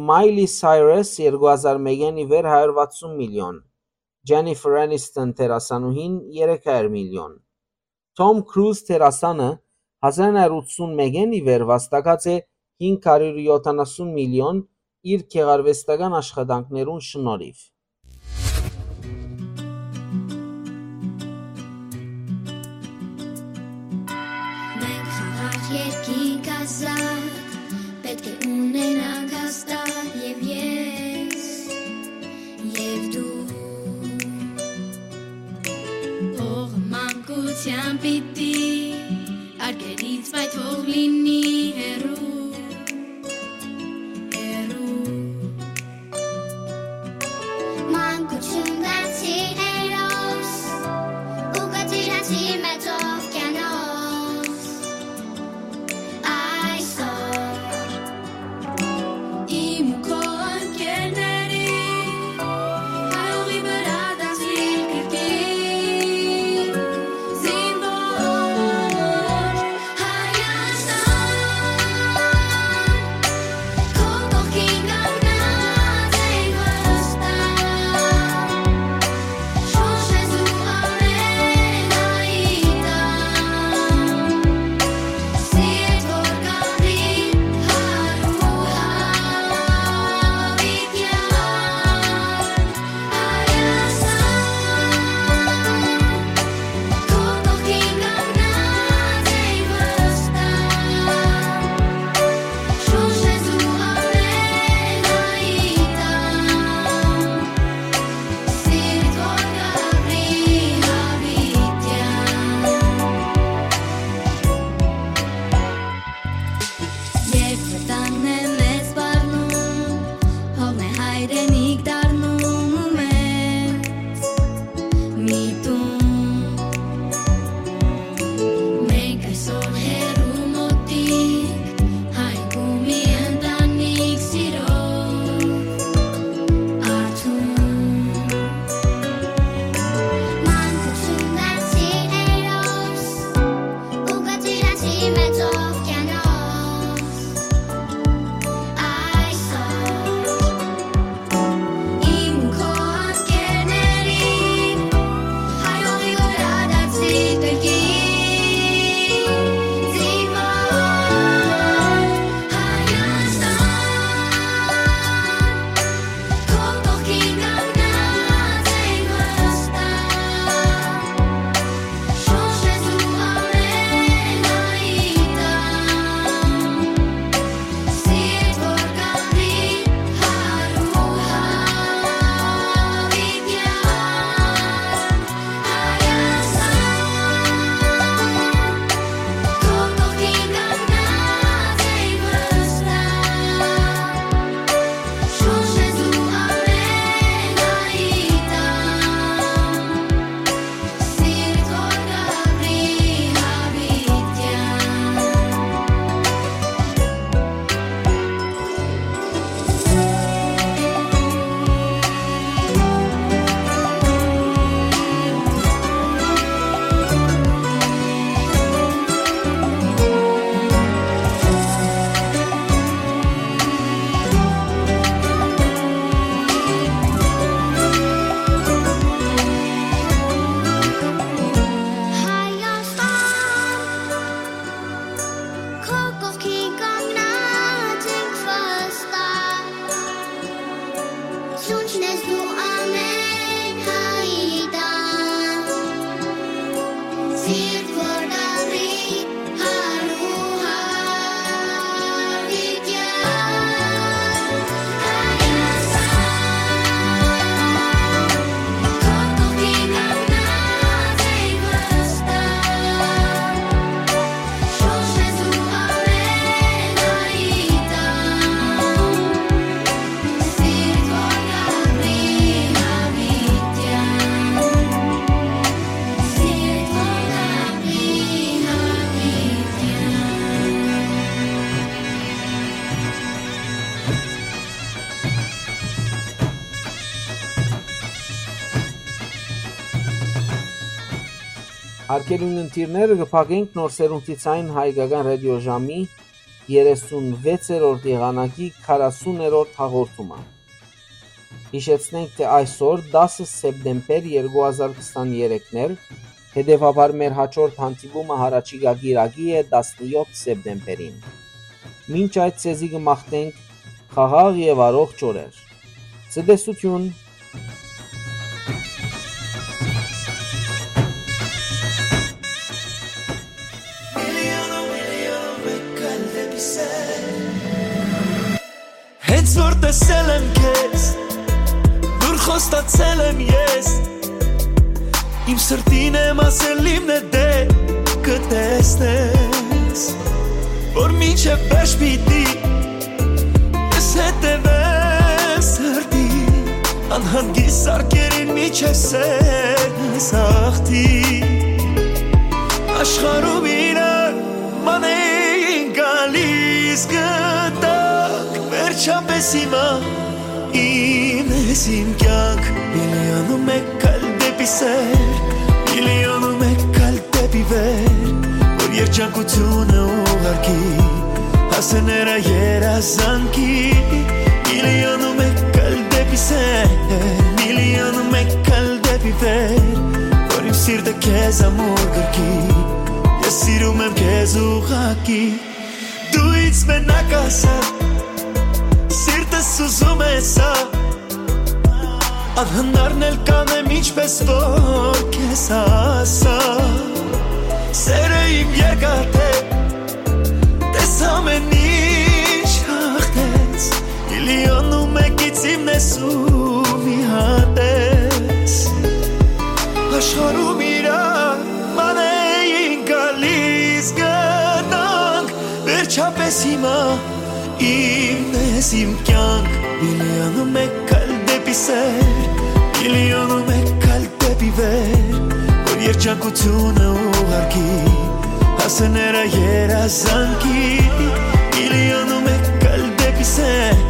Մայլի Սայրես, երկու հազար մէկէն ի վեր հարիւր վաթսուն միլիոն, Ջենիֆեր Էնիստոն դերասանուհին՝ երեք հարիւր միլիոն։ Թոմ Քրուզ դերասանը հազար նոյ յոթ յոթանասուն մէկէն ի վեր վաստակած է հինգ հարիւր յոթանասուն միլիոն իր գեղարուեստական աշխատանքներուն շնորհիվ։ Մենք խաղաղ երկինք ազատ, պետք է ունենանք հաստատ և ես, և դու։ Փողը մանկության պիտի արգելից, բայց թող լինի հեռու, հեռու։ Մանկություն դարձի հերոս ու կծիրանցի մեծ օվկիանոս։ Այսօր իմ ու քո ընկերների հայողի վրա դասի կրկին զինվոր Հայաստան։ Հարգելի ունգընտիրներ, կը փակենք Նոր Սերունդի Ձայնը հայկական ռատիոժամի երեսունվեցերորդ եղանակի քառասուներորդ հաղորդումը։ Յիշեցնենք, թէ այսօր, դասը սեպտեմբեր երկու հազար քսաներկու, հետեւաբար մեր յաջորդ հանդիպումը յառաջիկայ կիրակի է, տասնեօթ սեպտեմբերին։ Մինչ այդ, ձեզի կը մաղթենք խաղաղ եւ առողջ օրեր։ Ցտեսութիւն։ Հենց որ տեսել եմ քեզ, դուր խոստացել եմ ես, իմ սրտին եմ ասել, իմն է դե կտեսնես, որ մինչև վերջ պիտի ես հետևեմ սրտի, անհանգիստ սարքերին միջև սերնս ախտի։ Աշխարհում իրար ման էին գալիս գտակ, վերջապես հիմա իմ ես իմ կյանք, միլիոն ու մեկ քայլ դեպի սեր, միլիոն ու մեկ քայլ դեպի վեր, որ երջանկությունը ուղարկի, հասներ երազանքի, միլիոն ու մեկ քայլ դեպի սեր, միլիոն ու մեկ քայլ դեպի վեր, որ իմ սիրտը քեզ ամուր գրկի, ես սիրում եմ քեզ ուղղակի, դու ինձ մենակ ասա, սիրտս ուզում է սա, անհնարն էլ կանեմ ինչպես որ քեզ հասա, սերը իմ երկաթե, տես ամեն ինչ հաղթեց, միլիոն ու մեկից իմն ես ու մի հատ ես, աշխարհում իրա ման էին գալիս գտանք, վերջապես հիմա իմն ես իմ կյանք, միլիոն ու մեկ քայլ դեպի սեր, միլիոն ու մեկ քայլ դեպի վեր, որ երջանկությունը ուղարկի, հասներ երազանքի, միլիոն ու մեկ քայլ դեպի սեր,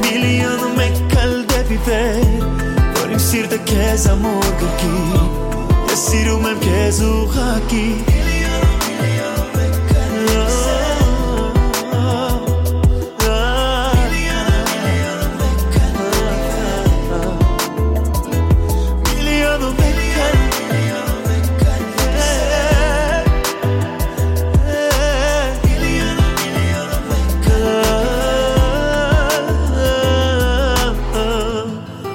միլիոն ու մեկ քայլ դեպի վեր, որ իմ սիրտը քեզ ամուր գրկի, ես սիրում եմ քեզ ուղղակի։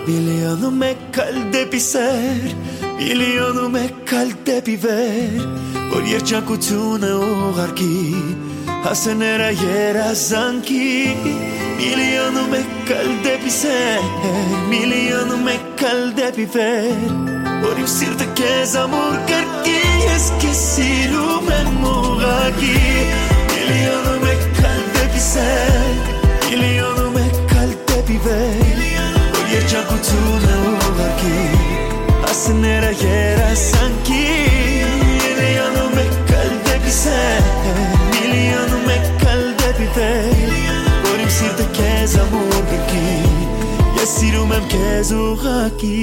Միլիոն ու մեկ քայլ դեպի սեր, միլիոն ու մեկ քայլ դեպի վեր, որ երջանկությունը ուղարկի, հասներ երազանքի, միլիոն ու մեկ քայլ դեպի սեր, միլիոն ու մեկ քայլ դեպի վեր, որ իմ սիրտը քեզ ամուր կրկի, ես քեզ սիրում եմ ուղղակի, միլիոն ու մեկ քայլ դեպի սեր, միլիոն ու մեկ քայլ դեպի վեր, որ երջանկությունը ուղարկի, հասները երազանքի, միլիոն ու մեկ քայլ դեպի սեր, միլիոն ու մեկ քայլ դեպի վեր, որ իմ սիրտը քեզ ամուր գրկի, ես սիրում եմ քեզ ուղղակի։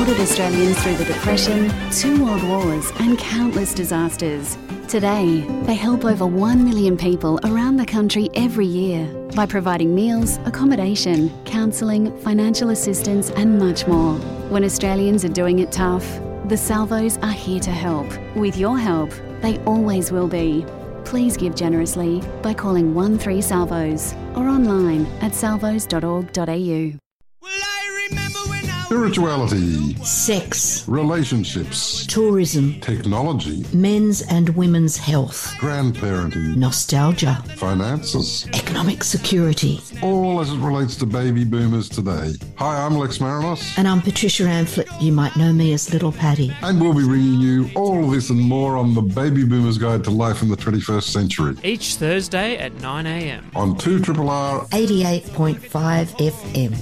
Supported Australians through the Depression, two world wars, and countless disasters. Today, they help over one million people around the country every year by providing meals, accommodation, counselling, financial assistance, and much more. When Australians are doing it tough, the Salvos are here to help. With your help, they always will be. Please give generously by calling one three Salvos or online at salvos dot org dot a u. Spirituality, sex, relationships, tourism, technology, men's and women's health, grandparenting, nostalgia, finances, economic security, all as it relates to baby boomers today. Hi, I'm Lex Marinos. And I'm Patricia Amphlett. You might know me as Little Patty. And we'll be bringing you all of this and more on the Baby Boomers Guide to Life in the twenty-first Century. Each Thursday at nine a.m. On two triple R eighty-eight point five F M.